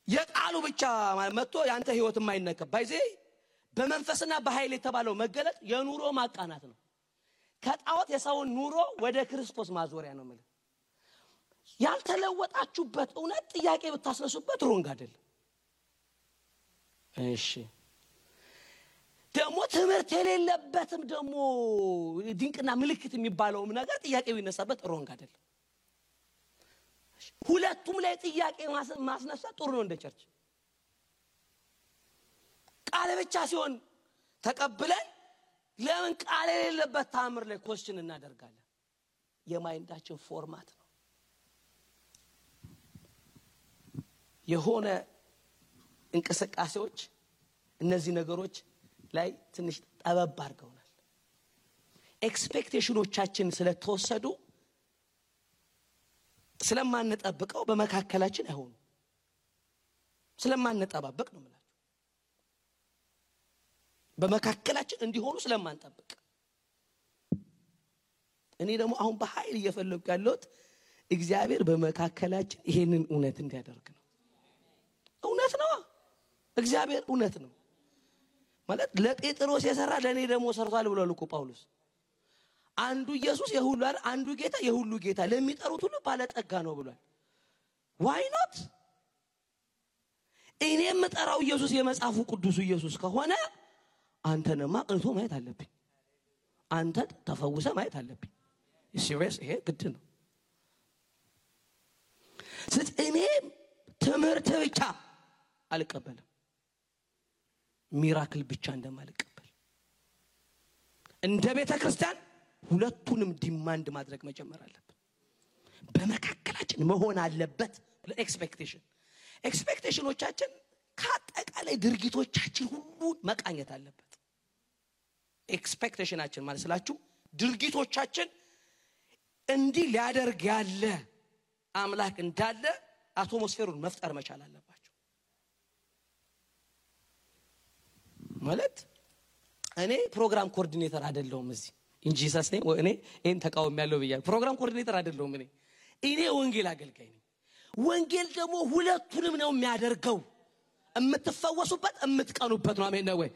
የቃሉ ብቻ መጥቶ ያንተ ህይወት የማይነካ ባይዜ በመንፈስና በኃይል የተባለው መገለጥ የኑሮ ማቃናት ነው። ከጣዖት የሰውን ኑሮ ወደ ክርስቶስ ማዞሪያ ነው ማለት። ያልተለወጣችሁበት እውነት ጥያቄ ብታስነሱበት ሮንግ አይደለም። እሺ ደግሞ ትምህርት የሌለበትም ደግሞ ድንቅና ምልክት የሚባለውም ነገር ጥያቄ ቢነሳበት ሮንግ አይደለም። ሁለቱም ላይ ጥያቄ ማስነሳት ጥሩ ነው። እንደ ቸርች ቃል ብቻ ሲሆን ተቀብለን ለምን ቃል የሌለበት ታምር ላይ ኮስችን እናደርጋለን? የማይንዳችን ፎርማት ነው። የሆነ እንቅስቃሴዎች እነዚህ ነገሮች ላይ ትንሽ ጠበብ አድርገውናል። ኤክስፔክቴሽኖቻችን ስለተወሰዱ ስለማንጠብቀው በመካከላችን አይሆኑ። ስለማንጠባበቅ ነው ማለት በመካከላችን እንዲሆኑ ስለማንጠብቅ። እኔ ደግሞ አሁን በኃይል እየፈለኩ ያለሁት እግዚአብሔር በመካከላችን ይሄንን እውነት እንዲያደርግ ነው። እውነት ነው። እግዚአብሔር እውነት ነው ማለት ለጴጥሮስ የሰራ ለኔ ደግሞ ሰርቷል ብሏል እኮ ጳውሎስ። አንዱ ኢየሱስ የሁሉ አይደል? አንዱ ጌታ የሁሉ ጌታ ለሚጠሩት ሁሉ ባለጠጋ ነው ብሏል። why not? እኔ የምጠራው ኢየሱስ የመጽሐፉ ቅዱስ ኢየሱስ ከሆነ አንተንማ ቅንቶ ማየት አለብኝ። አንተ ተፈውሰ ማየት አለብኝ። ሲሪየስ ይሄ ግድ ነው። ስለዚህ እኔ ትምህርት ብቻ አልቀበልም፣ ሚራክል ብቻ እንደማልቀበል እንደ ቤተ ክርስቲያን ሁለቱንም ዲማንድ ማድረግ መጀመር አለብን። በመካከላችን መሆን አለበት። ኤክስፔክቴሽኖቻችን ከአጠቃላይ ድርጊቶቻችን ሁሉ መቃኘት አለበት። ኤክስፔክቴሽናችን ማለት ስላችሁ ድርጊቶቻችን እንዲህ ሊያደርግ ያለ አምላክ እንዳለ አትሞስፌሩን መፍጠር መቻል አለባቸው። ማለት እኔ ፕሮግራም ኮኦርዲኔተር አይደለሁም እዚህ እንጂ ሰስኔ እኔ እን ተቃውም ያለው ብያ ፕሮግራም ኮኦርዲኔተር አይደለሁም። እኔ ወንጌል አገልጋይ ነኝ። ወንጌል ደግሞ ሁለቱንም ነው የሚያደርገው። እምትፈወሱበት እምትቀኑበት ነው። አሜን ነው ወይ?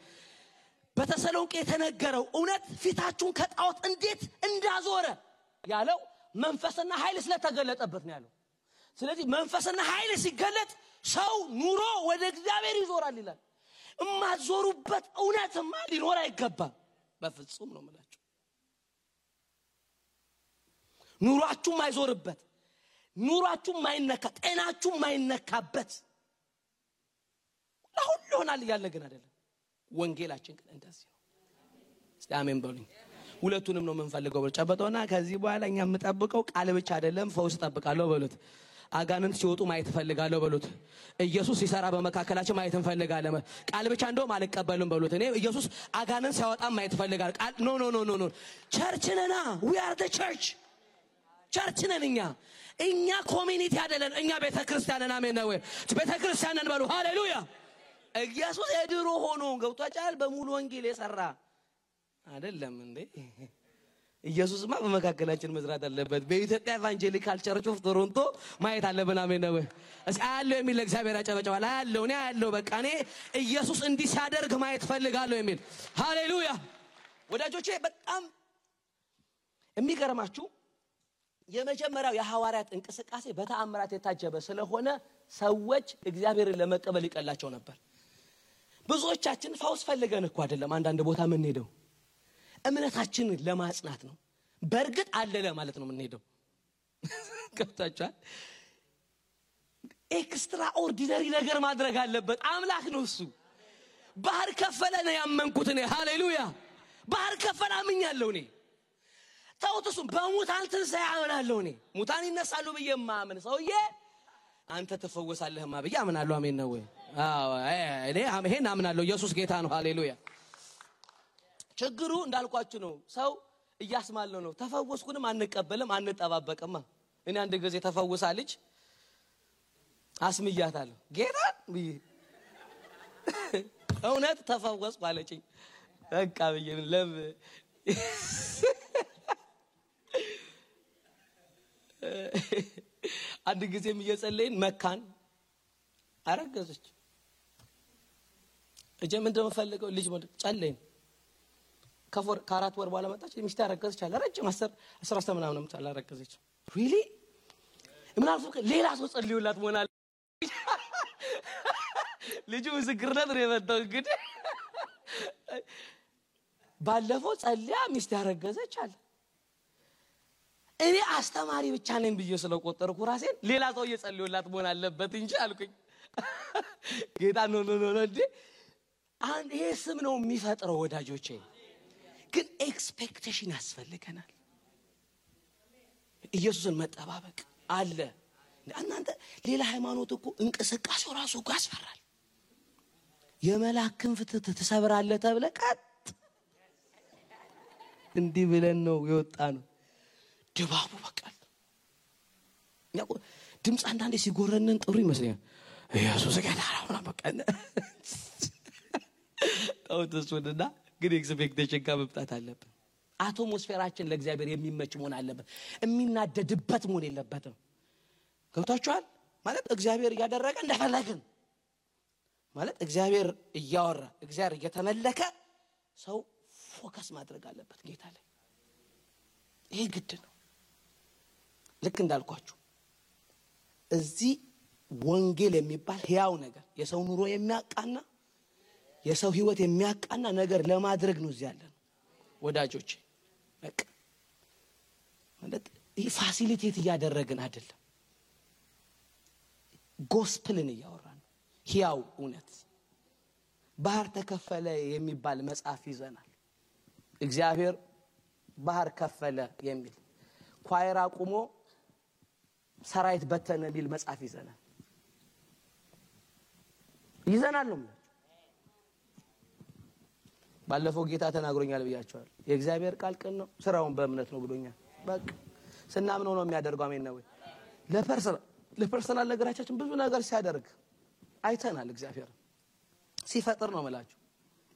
በተሰሎንቄ የተነገረው እውነት ፊታችሁን ከጣዖት እንዴት እንዳዞረ ያለው መንፈስና ኃይል ስለተገለጠበት ነው ያለው። ስለዚህ መንፈስና ኃይል ሲገለጥ ሰው ኑሮ ወደ እግዚአብሔር ይዞራል ይላል። እማዞሩበት እውነትማ ሊኖር አይገባም በፍጹም ነው የምላችሁ። ኑሯችሁ ማይዞርበት፣ ኑሯችሁ ማይነካ፣ ጤናችሁ ማይነካበት ለሁሉ ይሆናል ያለ ግን አይደለም። ወንጌላችን ግን እንደዚህ ነው። እስቲ አሜን በሉኝ። ሁለቱንም ነው የምንፈልገው። ጨበጦና ከዚህ በኋላ እኛ የምንጠብቀው ቃል ብቻ አይደለም፣ ፈውስ ተጠብቃለሁ በሉት። አጋንንት ሲወጡ ማየት ፈልጋለሁ በሉት። ኢየሱስ ሲሰራ በመካከላችን ማየት እንፈልጋለን። ቃል ብቻ እንደውም አልቀበልም በሉት። እኔ ኢየሱስ አጋንንት ሲያወጣ ማየት ፈልጋለሁ። ቃል ኖ ቸርች ነና we are the church። ቸርች ነን እኛ ኮሚኒቲ አይደለን። እኛ ቤተክርስቲያን ነን። አሜን ነው ወይ? ቤተክርስቲያን ነን በሉ። ሃሌሉያ። ኢየሱስ የድሮ ሆኖ ገብቷጫል በሙሉ ወንጌል የሰራ አይደለም እንዴ? ኢየሱስማ በመካከላችን መስራት አለበት። በኢትዮጵያ ኢቫንጀሊካል ቸርች ኦፍ ቶሮንቶ ማየት አለብን። አሜን ነው ወይ? እስኪ አያለው የሚል እግዚአብሔር ያጨበጨባል። አያለው በቃ እኔ ኢየሱስ እንዲህ ሲያደርግ ማየት ፈልጋለሁ የሚል ሃሌሉያ። ወዳጆቼ በጣም የሚገርማችሁ የመጀመሪያው የሐዋርያት እንቅስቃሴ በተአምራት የታጀበ ስለሆነ ሰዎች እግዚአብሔርን ለመቀበል ይቀላቸው ነበር። ብዙዎቻችን ፈውስ ፈልገን እኮ አይደለም አንዳንድ ቦታ ምን ሄደው እምነታችንን ለማጽናት ነው። በእርግጥ አለ ለማለት ነው ምን ሄደው። ገብታችኋል? ኤክስትራ ኦርዲነሪ ነገር ማድረግ አለበት። አምላክ ነው እሱ። ባህር ከፈለ ነው ያመንኩት እኔ። ሃሌሉያ። ባህር ከፈለ አምኛለሁ እኔ። ታውቱስ በሙታን ትንሣኤ አምናለሁ እኔ። ሙታን ይነሳሉ ብዬ ማምን ሰውዬ አንተ ተፈወሳለህማ ብዬ አምናለሁ። አሜን ነው ወይ? አዎ እኔ ይሄን አምናለሁ። ኢየሱስ ጌታ ነው። ሃሌሉያ። ችግሩ እንዳልኳችሁ ነው። ሰው እያስማለው ነው። ተፈወስኩንም አንቀበልም አንጠባበቅማ። እኔ አንድ ጊዜ ተፈውሳለች አስምያታለሁ ጌታ ብዬ እውነት ተፈወስኩ አለችኝ። በቃ ብዬ ለም አንድ ጊዜም እየጸለይን መካን አረገዘች። እጀም እንደምፈልገው ልጅ ማለት ጸለይን ከአራት ወር በኋላ መጣች። ሚስት አረገዘች አለ ረጅም 10 ምናምን አላረገዘች። ሪሊ ምን አልፎ ሌላ ሰው ጸልዩላት ሞናል ልጁ ምስክርነት ነው የመጣው። እንግዲህ ባለፈው ጸልያ ሚስት ያረገዘች አለ። እኔ አስተማሪ ብቻ ነኝ ብዬ ስለቆጠርኩ ራሴን ሌላ ሰው እየጸልዩላት መሆን አለበት እንጂ አልኩኝ። ጌታ ኖ እንዴ አንድ ይሄ ስም ነው የሚፈጥረው ወዳጆቼ። ግን ኤክስፔክቴሽን ያስፈልገናል። ኢየሱስን መጠባበቅ አለ። እናንተ ሌላ ሃይማኖት እኮ እንቅስቃሴው ራሱ እኮ ያስፈራል። የመላእክን ፍትህ ተሰብራለ ተብለ ቀጥ እንዲህ ብለን ነው የወጣነው። ድባቡ በቃል ያው ድምጽ አንዳንዴ ሲጎረነን ጥሩ ይመስለኛል። ኢየሱስ ጌታ ነው በቃ ታውተስወደና ግን ኤክስፔክቴሽን ከመብጣት አለብን። አትሞስፌራችን ለእግዚአብሔር የሚመች መሆን አለበት። የሚናደድበት መሆን የለበትም። ገብታችኋል ማለት እግዚአብሔር ያደረገ እንደፈለግን ማለት እግዚአብሔር እያወራ እግዚአብሔር እየተመለከ ሰው ፎከስ ማድረግ አለበት ጌታ ላይ። ይሄ ግድ ነው። ልክ እንዳልኳችሁ እዚህ ወንጌል የሚባል ሕያው ነገር የሰው ኑሮ የሚያቃና የሰው ህይወት የሚያቃና ነገር ለማድረግ ነው እዚህ ያለን ወዳጆቼ። በቃ ማለት ይሄ ፋሲሊቴት እያደረግን አይደለም። ጎስፕልን እያወራን ሕያው እውነት። ባህር ተከፈለ የሚባል መጽሐፍ ይዘናል። እግዚአብሔር ባህር ከፈለ የሚል ኳየር አቁሞ ሰራዊት በተነ የሚል መጽሐፍ ይዘናል ነው። ባለፈው ጌታ ተናግሮኛል ብያቸዋል። የእግዚአብሔር ቃል ቅን ነው ስራውን በእምነት ነው ብሎኛል። በቃ ስናምነው ነው የሚያደርገው። አሜን ነው ወይ? ለፐርሰናል ነገራችን ብዙ ነገር ሲያደርግ አይተናል። እግዚአብሔር ሲፈጥር ነው ማለት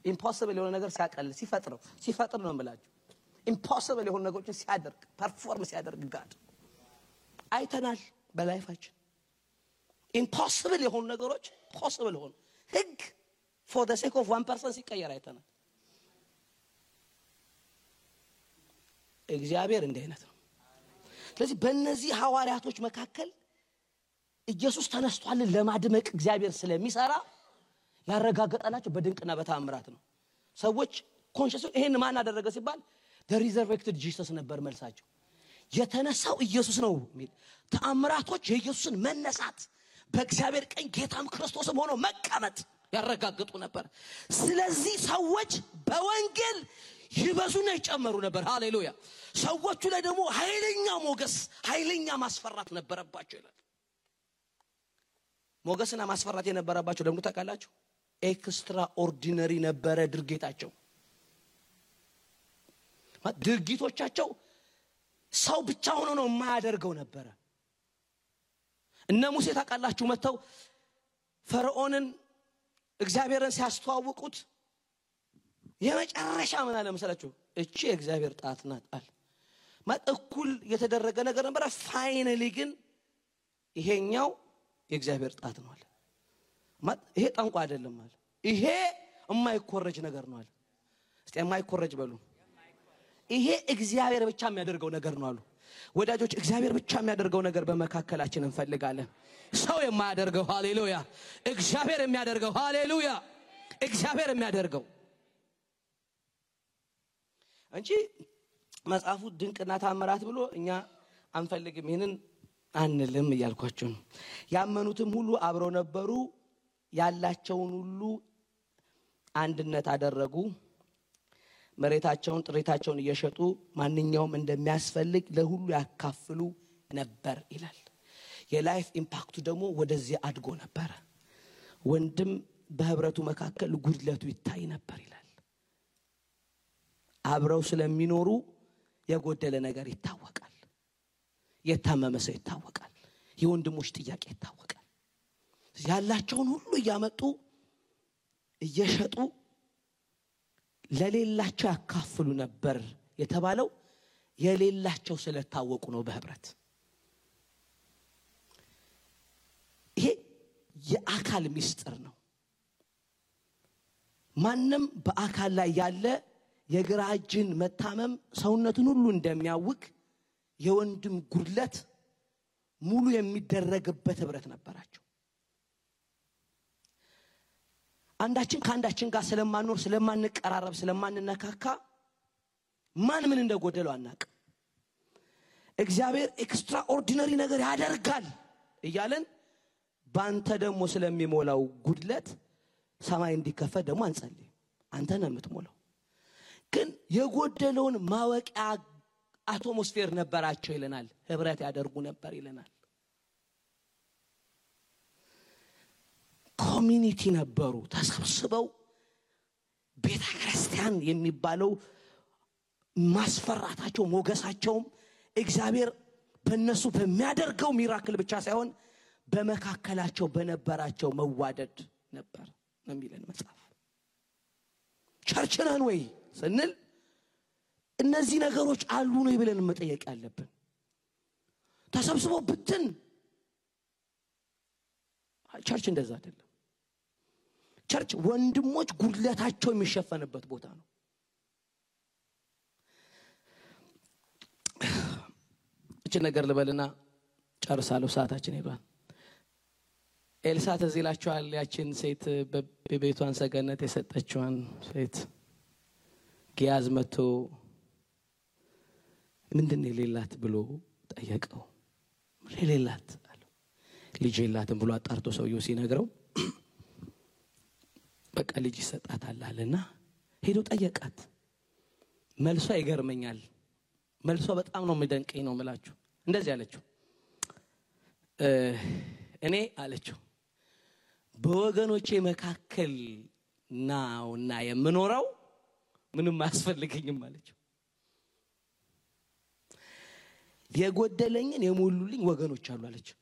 ኢምፖሲብል የሆነ ነገር ሲያቀል ሲፈጥር ነው ማለት ኢምፖሲብል የሆነ ነገሮችን ሲያደርግ ፐርፎርም ሲያደርግ ጋድ አይተናል በላይፋችን። ኢምፖሲብል የሆኑ ነገሮች ፖሲብል ሆኑ። ህግ for the sake of one person ሲቀየር አይተናል። እግዚአብሔር እንደ አይነት ነው። ስለዚህ በእነዚህ ሐዋርያቶች መካከል ኢየሱስ ተነስቷል ለማድመቅ እግዚአብሔር ስለሚሰራ ያረጋገጠላቸው በድንቅና በተአምራት ነው። ሰዎች ኮንሺየስ ይሄን ማን አደረገ ሲባል the resurrected Jesus ነበር መልሳቸው። የተነሳው ኢየሱስ ነው የሚል ተአምራቶች የኢየሱስን መነሳት በእግዚአብሔር ቀኝ ጌታም ክርስቶስም ሆኖ መቀመጥ ያረጋግጡ ነበር። ስለዚህ ሰዎች በወንጌል ይበዙና ይጨመሩ ነበር። ሃሌሉያ። ሰዎቹ ላይ ደግሞ ኃይለኛ ሞገስ ኃይለኛ ማስፈራት ነበረባቸው ይላል። ሞገስና ማስፈራት የነበረባቸው ደግሞ ታውቃላችሁ ኤክስትራ ኦርዲነሪ ነበረ ድርጊታቸው። ድርጊቶቻቸው ሰው ብቻ ሆኖ ነው የማያደርገው ነበረ። እነ ሙሴ ታውቃላችሁ መተው ፈርዖንን እግዚአብሔርን ሲያስተዋውቁት የመጨረሻ ምን አለ መሰላችሁ? እቺ የእግዚአብሔር ጣት ናት አለ። ማጥኩል የተደረገ ነገር ነበር። ፋይናሊ ግን ይሄኛው የእግዚአብሔር ጣት ነው አለ። ይሄ ጠንቋ አይደለም አለ። ይሄ የማይኮረጅ ነገር ነው አለ። እስቲ የማይኮረጅ በሉ። ይሄ እግዚአብሔር ብቻ የሚያደርገው ነገር ነው አሉ። ወዳጆች እግዚአብሔር ብቻ የሚያደርገው ነገር በመካከላችን እንፈልጋለን። ሰው የማያደርገው ሃሌሉያ፣ እግዚአብሔር የሚያደርገው ሃሌሉያ፣ እግዚአብሔር የሚያደርገው እንጂ መጽሐፉ ድንቅና ተአምራት ብሎ እኛ አንፈልግም። ይሄንን አንልም እያልኳችሁ ነው። ያመኑትም ሁሉ አብረው ነበሩ፣ ያላቸውን ሁሉ አንድነት አደረጉ፣ መሬታቸውን ጥሪታቸውን እየሸጡ ማንኛውም እንደሚያስፈልግ ለሁሉ ያካፍሉ ነበር ይላል። የላይፍ ኢምፓክቱ ደግሞ ወደዚህ አድጎ ነበር። ወንድም በህብረቱ መካከል ጉድለቱ ይታይ ነበር ይላል። አብረው ስለሚኖሩ የጎደለ ነገር ይታወቃል። የታመመ ሰው ይታወቃል። የወንድሞች ጥያቄ ይታወቃል። ያላቸውን ሁሉ እያመጡ እየሸጡ ለሌላቸው ያካፍሉ ነበር የተባለው የሌላቸው ስለታወቁ ነው በህብረት። ይሄ የአካል ምስጢር ነው። ማንም በአካል ላይ ያለ የግራ እጅን መታመም ሰውነቱን ሁሉ እንደሚያውክ የወንድም ጉድለት ሙሉ የሚደረግበት ህብረት ነበራቸው። አንዳችን ከአንዳችን ጋር ስለማንኖር ስለማንቀራረብ ስለማንነካካ ማን ምን እንደጎደለው አናቅ። እግዚአብሔር ኤክስትራ ኦርዲነሪ ነገር ያደርጋል እያለን ባንተ ደግሞ ስለሚሞላው ጉድለት ሰማይ እንዲከፈት ደግሞ አንጸልይ። አንተ ነህ የምትሞላው። ግን የጎደለውን ማወቂያ አቶሞስፌር ነበራቸው ይለናል። ህብረት ያደርጉ ነበር ይለናል። ኮሚኒቲ ነበሩ። ተሰብስበው ቤተክርስቲያን የሚባለው ማስፈራታቸው ሞገሳቸውም እግዚአብሔር በእነሱ በሚያደርገው ሚራክል ብቻ ሳይሆን በመካከላቸው በነበራቸው መዋደድ ነበር ነው የሚለን መጽሐፍ። ቸርች ነን ወይ ስንል እነዚህ ነገሮች አሉ ነው ብለን መጠየቅ ያለብን። ተሰብስበው ብትን ቸርች እንደዛ አይደለም። ቸርች ወንድሞች ጉድለታቸው የሚሸፈንበት ቦታ ነው። እቺ ነገር ልበልና ጨርሳለሁ፣ ሰዓታችን ሄዷል። ኤልሳ ትዝ ይላችኋል? ያችን ሴት በቤቷን ሰገነት የሰጠችዋን ሴት ጊያዝ መጥቶ ምንድነው የሌላት ብሎ ጠየቀው። የሌላት አለው። ልጅ የላትም ብሎ አጣርቶ ሰውየው ሲነግረው በቃ ልጅ ይሰጣታል አለና ሄዶ ጠየቃት። መልሷ ይገርመኛል። መልሷ በጣም ነው የሚደንቀኝ ነው የምላችሁ። እንደዚህ አለችው፣ እኔ አለችው በወገኖቼ መካከል ናውና የምኖረው ምንም አያስፈልገኝም አለችው። የጎደለኝን የሞሉልኝ ወገኖች አሉ አለችው።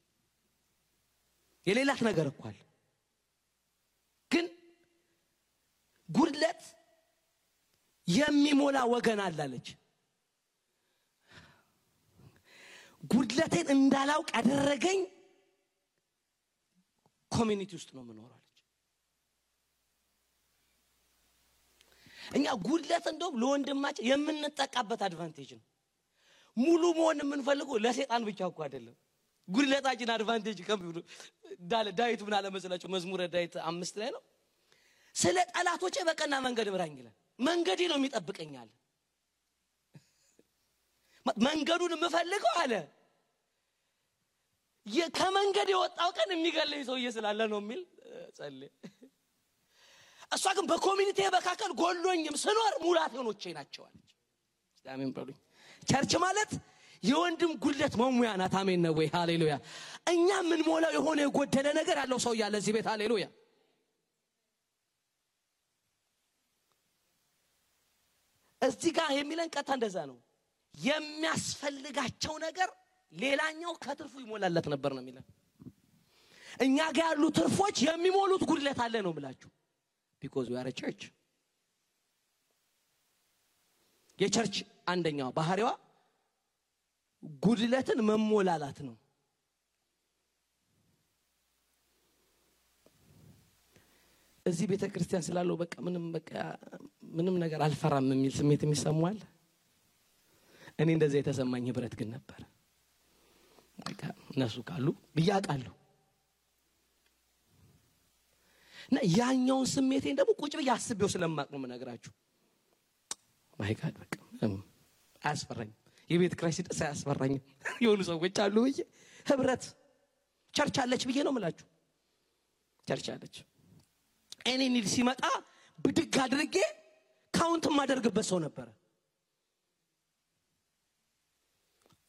የሌላት ነገር እኮ አለ፣ ግን ጉድለት የሚሞላ ወገን አለ አለች። ጉድለቴን እንዳላውቅ ያደረገኝ ኮሚኒቲ ውስጥ ነው የምኖረው አለች። እኛ ጉድለት እንደውም ለወንድማችን የምንጠቃበት አድቫንቴጅ ነው። ሙሉ መሆን የምንፈልገው ለሰይጣን ብቻ እኮ አይደለም። ጉድለታችን አድቫንቴጅ ከብዱ ዳዊት ምን አለ መሰላችሁ? መዝሙረ ዳዊት 5 ላይ ነው ስለ ጠላቶቼ በቀና መንገድ ምራኝ ይላል። መንገዴ ነው የሚጠብቀኛል። መንገዱን የምፈልገው አለ ከመንገድ የወጣው ቀን የሚገለኝ ሰውዬ ስላለ ነው የሚል ጸልይ። እሷ ግን በኮሚኒቲ መካከል ጎሎኝም ስኖር ሙላቴኖቼ ናቸው አለች። አሜን በሉኝ። ቸርች ማለት የወንድም ጉድለት መሙያ ናት። አሜን ነው ወይ? ሃሌሉያ። እኛ ምን ሞላው የሆነ የጎደለ ነገር ያለው ሰው ያለ እዚህ ቤት ሃሌሉያ። እዚህ ጋር የሚለን ቀጣ እንደዛ ነው። የሚያስፈልጋቸው ነገር ሌላኛው ከትርፉ ይሞላለት ነበር ነው የሚለን። እኛ ጋር ያሉ ትርፎች የሚሞሉት ጉድለት አለ ነው ብላችሁ because we are a church። የቸርች አንደኛው ባህሪዋ ጉድለትን መሞላላት ነው። እዚህ ቤተክርስቲያን ስላለው በቃ ምንም ነገር አልፈራም የሚል ስሜት የሚሰማዋል። እኔ እንደዚህ የተሰማኝ ህብረት ግን ነበር። በቃ እነሱ ካሉ ብያቃለሁ እና ያኛውን ስሜቴን ደግሞ ቁጭ ብዬ አስቤው ስለማቅ ነው የምነግራችሁ። ማይ ጋድ በቃ አያስፈራኝም። የቤት ክራይሲስ አያስፈራኝም። የሆኑ ሰዎች አሉ ህብረት ቸርች አለች ብዬ ነው የምላችሁ። ቸርች አለች። እኔ ኒድ ሲመጣ ብድግ አድርጌ ካውንት ማደርግበት ሰው ነበር።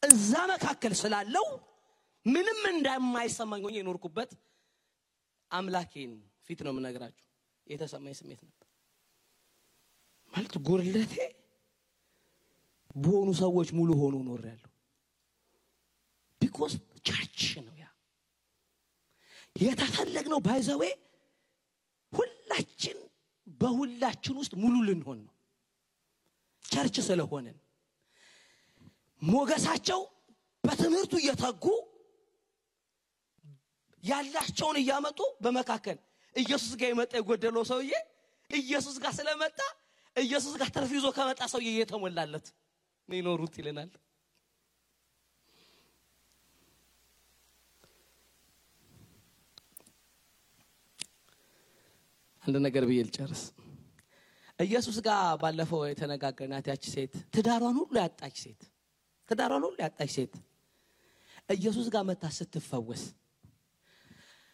እዛ መካከል ስላለው ምንም እንደማይሰማኝ ሆኜ የኖርኩበት አምላኬን ፊት ነው የምነግራችሁ የተሰማኝ ስሜት ነበር። ማለት ጉርለቴ በሆኑ ሰዎች ሙሉ ሆኖ ኖርያለሁ። because ቸርች ነው ያ የተፈለግነው። ባይዘዌ ሁላችን በሁላችን ውስጥ ሙሉ ልንሆን ነው ቸርች ስለሆነን። ሞገሳቸው በትምህርቱ እየተጉ ያላቸውን እያመጡ በመካከል ኢየሱስ ጋር የመጣ የጎደለው ሰውዬ ኢየሱስ ጋር ስለመጣ ኢየሱስ ጋር ተርፊዞ ከመጣ ሰውዬ የተሞላለት ነው ይኖሩት ይለናል። አንድ ነገር ብዬ ልጨርስ። ኢየሱስ ጋር ባለፈው የተነጋገርናት ያቺ ሴት ትዳሯን ሁሉ ያጣች ሴት ኢየሱስ ጋር መጣ ስትፈወስ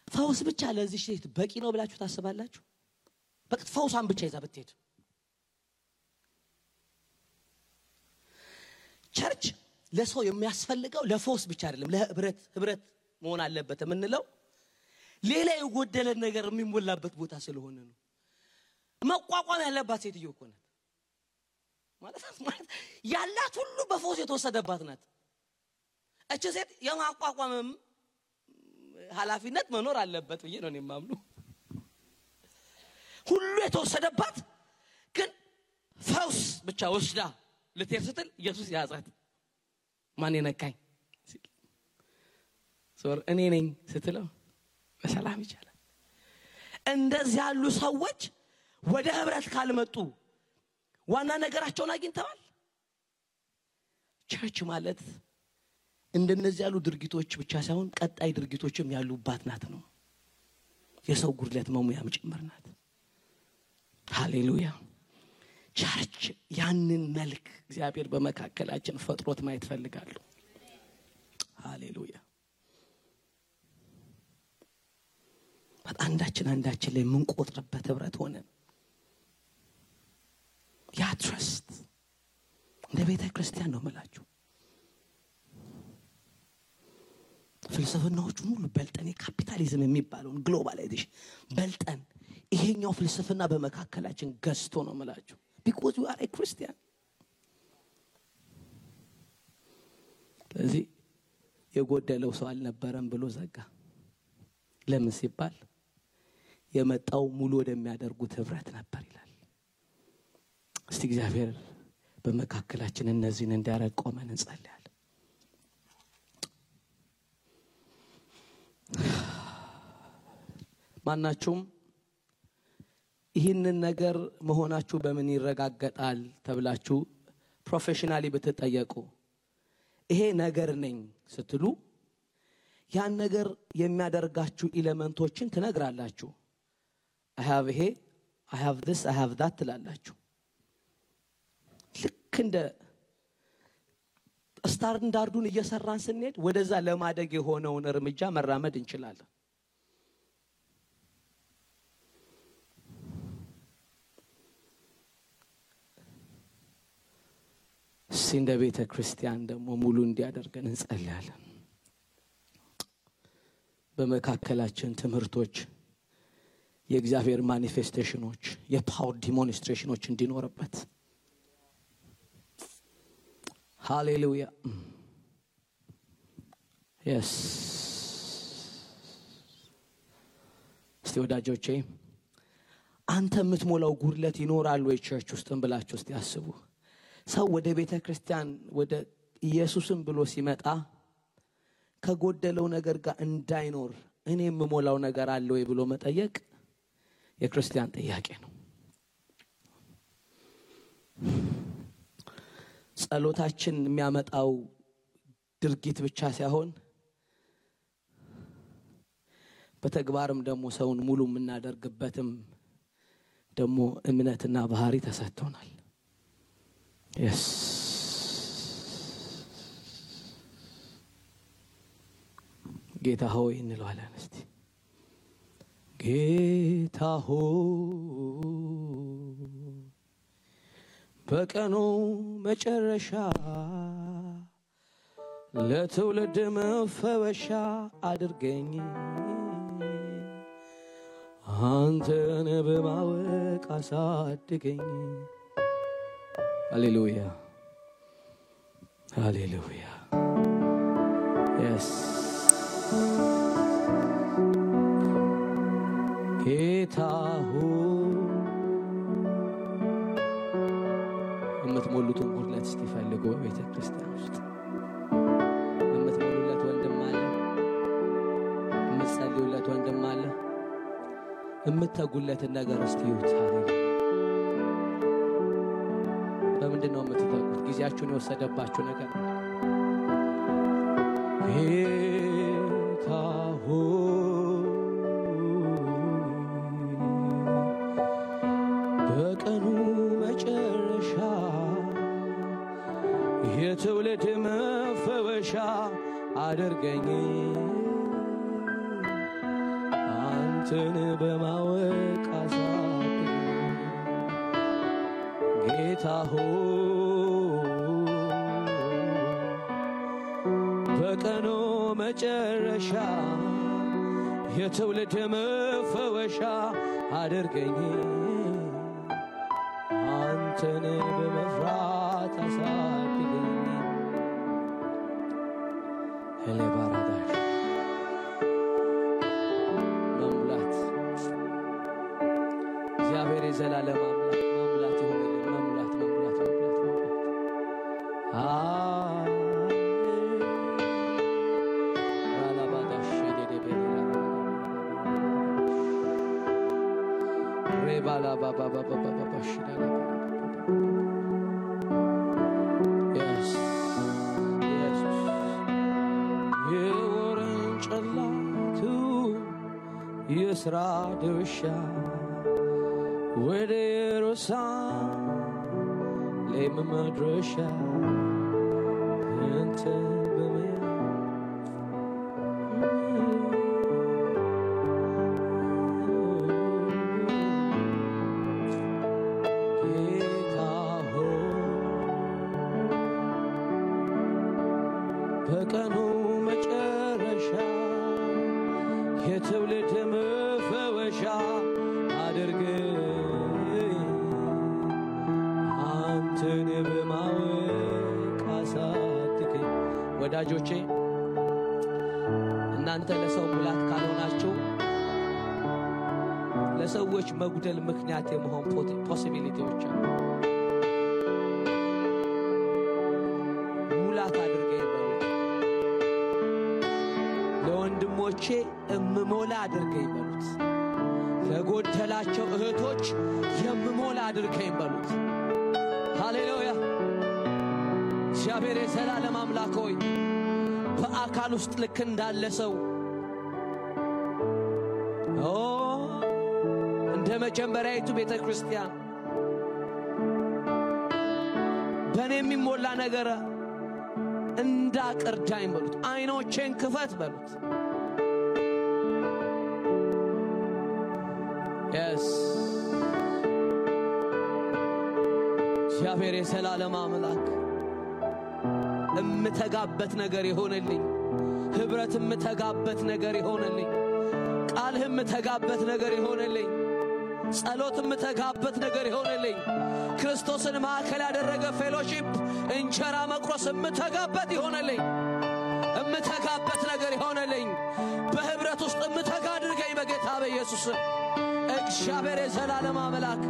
ፈውስ ብቻ ለዚህ ሴት በቂ ነው ብላችሁ ታስባላችሁ? በቃ ፈውሳን ብቻ ይዛ ብትሄድ። ቸርች ለሰው የሚያስፈልገው ለፈውስ ብቻ አይደለም፣ ለህብረት መሆን አለበት የምንለው ሌላ የጎደለ ነገር የሚሞላበት ቦታ ስለሆነ ነው። መቋቋም ያለባት ሴትዮ እኮ ናት ማለት ያላት ሁሉ በፈውስ የተወሰደባት ናት። እቺ ሴት የማቋቋምም ኃላፊነት መኖር አለበት ብዬ ነው የማምነው። ሁሉ የተወሰደባት ግን ፈውስ ብቻ ወስዳ ልትሄድ ስትል ኢየሱስ ያዛት። ማን የነካኝ እኔ ነኝ ስትለው በሰላም ይቻላል። እንደዚህ ያሉ ሰዎች ወደ ህብረት ካልመጡ ዋና ነገራቸውን አግኝተዋል። ቸርች ማለት እንደነዚህ ያሉ ድርጊቶች ብቻ ሳይሆን ቀጣይ ድርጊቶችም ያሉባት ናት ነው። የሰው ጉድለት መሙያም ጭምር ናት። ሃሌሉያ። ቸርች ያንን መልክ እግዚአብሔር በመካከላችን ፈጥሮት ማየት ፈልጋለሁ። ሃሌሉያ። አንዳችን ላይ ምን ቆጥረበት ህብረት ሆነ ያ ትረስት እንደ ቤተ ክርስቲያን ነው መላችሁ። ፍልስፍናዎቹን ሁሉ በልጠን የካፒታሊዝም የሚባለውን ግሎባላይዜሽን በልጠን ይሄኛው ፍልስፍና በመካከላችን ገዝቶ ነው መላችሁ። because you are a Christian። ስለዚህ የጎደለው ሰው አልነበረም ብሎ ዘጋ። ለምን ሲባል የመጣው ሙሉ ወደሚያደርጉት ህብረት ነበር ይላል። እስቲ እግዚአብሔር በመካከላችን እነዚህን እንዲያረግ ቆመን እንጸልያለን። ማናችሁም ይህንን ነገር መሆናችሁ በምን ይረጋገጣል ተብላችሁ ፕሮፌሽናሊ ብትጠየቁ ይሄ ነገር ነኝ ስትሉ ያን ነገር የሚያደርጋችሁ ኤሌመንቶችን ትነግራላችሁ። I have ይሄ I have this I have that ትላላችሁ። ልክ እንደ ስታንዳርዱን እየሰራን ስንሄድ ወደዛ ለማደግ የሆነውን እርምጃ መራመድ እንችላለን። እንደ ቤተ ክርስቲያን ደግሞ ሙሉ እንዲያደርገን እንጸልያለን። በመካከላችን ትምህርቶች፣ የእግዚአብሔር ማኒፌስቴሽኖች፣ የፓወር ዲሞንስትሬሽኖች እንዲኖርበት። ሃሌሉያ። yes እስቲ ወዳጆቼ አንተ የምትሞላው ጉድለት ይኖራል ወይ ቸርች ውስጥም ብላችሁ እስቲ አስቡ። ሰው ወደ ቤተ ክርስቲያን ወደ ኢየሱስም ብሎ ሲመጣ ከጎደለው ነገር ጋር እንዳይኖር እኔ የምሞላው ነገር አለ ወይ ብሎ መጠየቅ የክርስቲያን ጥያቄ ነው። ጸሎታችን የሚያመጣው ድርጊት ብቻ ሳይሆን በተግባርም ደግሞ ሰውን ሙሉ የምናደርግበትም ደግሞ እምነትና ባህሪ ተሰጥቶናል። yes ጌታ ሆይ እንለዋለን። እስቲ ጌታ ሆይ በቀኑ መጨረሻ ለትውልድ መፈወሻ አድርገኝ አንተን በማወቅ አሳድገኝ። ሃሌሉያ ሃሌሉያ yes ጌታ ሆይ የምትሞሉትን ጉድለት እስቲ ፈልጉ። በቤተ ክርስቲያን ውስጥ የምትሞሉለት ወንድም አለ፣ የምትጸልዩለት ወንድም አለ፣ የምትተጉለትን ነገር እስቲ ይዩት። ሃሌሉያ በምንድነው የምትተጉት? ጊዜያችሁን የወሰደባችሁ ነገር ጌታ ሆይ በቀኑ መጨረሻ የትውልድ መፈወሻ አድርገኝ አንተን በማወቅ አሳድገኝ ጌታ ሆይ በቀኑ መጨረሻ የትውልድ መፈወሻ አድርገኝ አንተን በመፍራት አሳድገኝ። ሄሌባራዳሽ መሙላት እግዚአብሔር የዘላለም አምላክ መሙላት ይሆንልን። መሙላት መሙላት መሙላት መሙላት Bala baba baba baba shida. Yes, yes. Yeworan chalatu yesra dusha wederosa lem madrosha ente bemea በቀኑ መጨረሻ የትውልድ መፈወሻ አድርገኝ አንተን በማወቅ አሳድገኝ። ወዳጆቼ እናንተ ለሰው ሙላት ካልሆናችሁ ለሰዎች መጉደል ምክንያት የመሆን ፖሲቢሊቲዎች አሉ። ሙላት አድርገኝ በሉት። ለወንድሞቼ እምሞላ አድርገኝ በሉት። ለጎደላቸው እህቶች የምሞላ አድርገኝ በሉት። ሃሌሉያ። እግዚአብሔር የዘላለም አምላክ ሆይ በአካል ውስጥ ልክ እንዳለ ሰው እንደ መጀመሪያይቱ ቤተ ክርስቲያን በእኔ የሚሞላ ነገር እንዳቀርዳኝ በሉት። አይኖቼን ክፈት በሉት። yes እግዚአብሔር የዘላለም አምላክ እምተጋበት ነገር ይሆንልኝ። ህብረት እምተጋበት ነገር ይሆንልኝ። ቃልህ እምተጋበት ነገር ይሆንልኝ። ጸሎት እምተጋበት ነገር ይሆንልኝ። ክርስቶስን ማዕከል ያደረገ ፌሎሺፕ እንጀራ መቁረስ እምተጋበት ይሆንልኝ። እምተጋበት ነገር ይሆንልኝ። በህብረት ውስጥ እምተጋ አድርገኝ በጌታ በኢየሱስ እግዚአብሔር የዘላለም አምላክ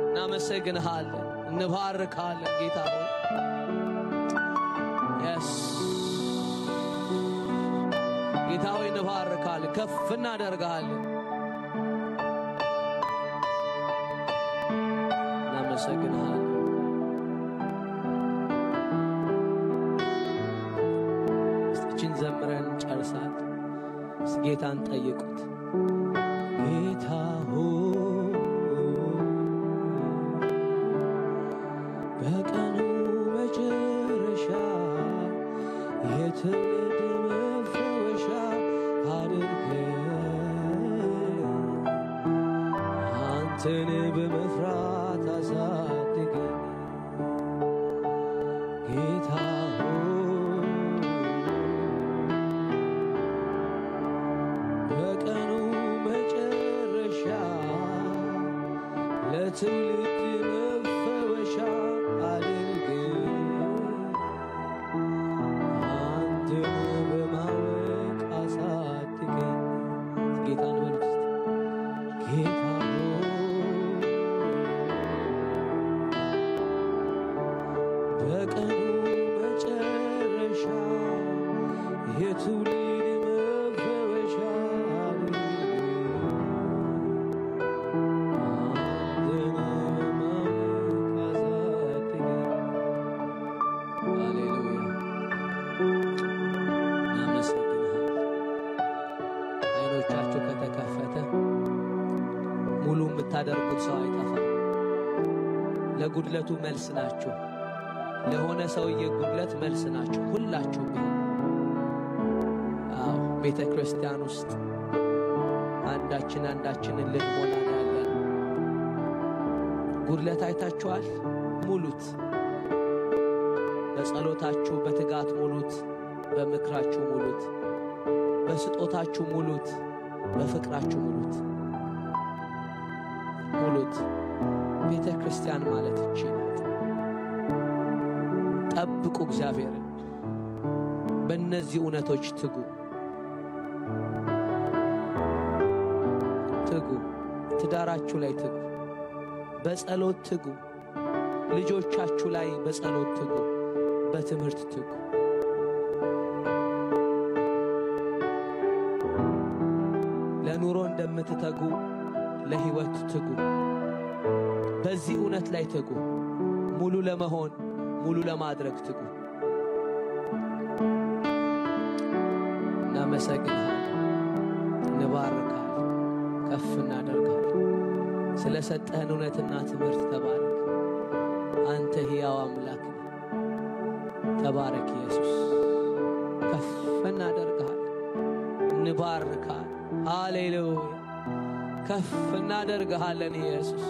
እናመሰግንሃለን፣ እንባርካለን ጌታ ሆይ yes ጌታ ሆይ እንባርካለን፣ ከፍ እናደርጋለን። እናመሰግንሃለን። እስቲችን ዘምረን ጨርሳት ጌታን ጠይቁት። ጌታ ሆይ በቀኑ መጨረሻ የትውልድ መፈወሻ አድርገኝ አንተን በመፍራት አሳድገኝ ጌታ በቀኑ መጨረሻ ለትውልድ መፈወሻ አድርገኝ አንተን በማወቅ አሳድገኝ ጌታን በሉት ጌታ በቀኑ መጨረሻ የትውልድ መፈወሻ አንተን በማወቅ አሳድገኝ ሃሌሉያ እናመሰግንሃለን አይኖቻችሁ ከተከፈተ ሙሉ የምታደርጉት ሰው አይጠፋም ለጉድለቱ መልስ ናችሁ ለሆነ ሰውዬ ጉድለት መልስ ናችሁ ሁላችሁ ቤተ ክርስቲያን ውስጥ አንዳችንን ልንሞላ ያለን ጉድለት አይታችኋል ሙሉት በጸሎታችሁ በትጋት ሙሉት በምክራችሁ ሙሉት በስጦታችሁ ሙሉት በፍቅራችሁ ሙሉት ቤተ ክርስቲያን ማለት እቺ ናት ጠብቁ እግዚአብሔርን በእነዚህ እውነቶች ትጉ ትዳራችሁ ላይ ትጉ በጸሎት ትጉ ልጆቻችሁ ላይ በጸሎት ትጉ በትምህርት ትጉ ለኑሮ እንደምትተጉ ለህይወት ትጉ በዚህ እውነት ላይ ትጉ ሙሉ ለመሆን ሙሉ ለማድረግ ትጉ እናመሰግንሃለን እንባርካለን ከፍ እናደርጋለን ስለሰጠህን እውነትና ትምህርት ተባረክ አንተ ሕያው አምላክ ተባረክ ኢየሱስ ከፍ እናደርጋለን እንባርካለን ሃሌሉያ ከፍ እናደርጋለን ኢየሱስ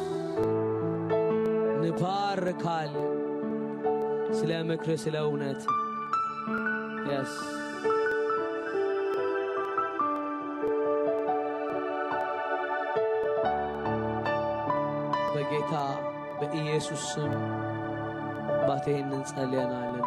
እንባርካለን ስለ ምክር ስለ እውነት yes በጌታ በኢየሱስ ስም ባቴን እንጸልያናልና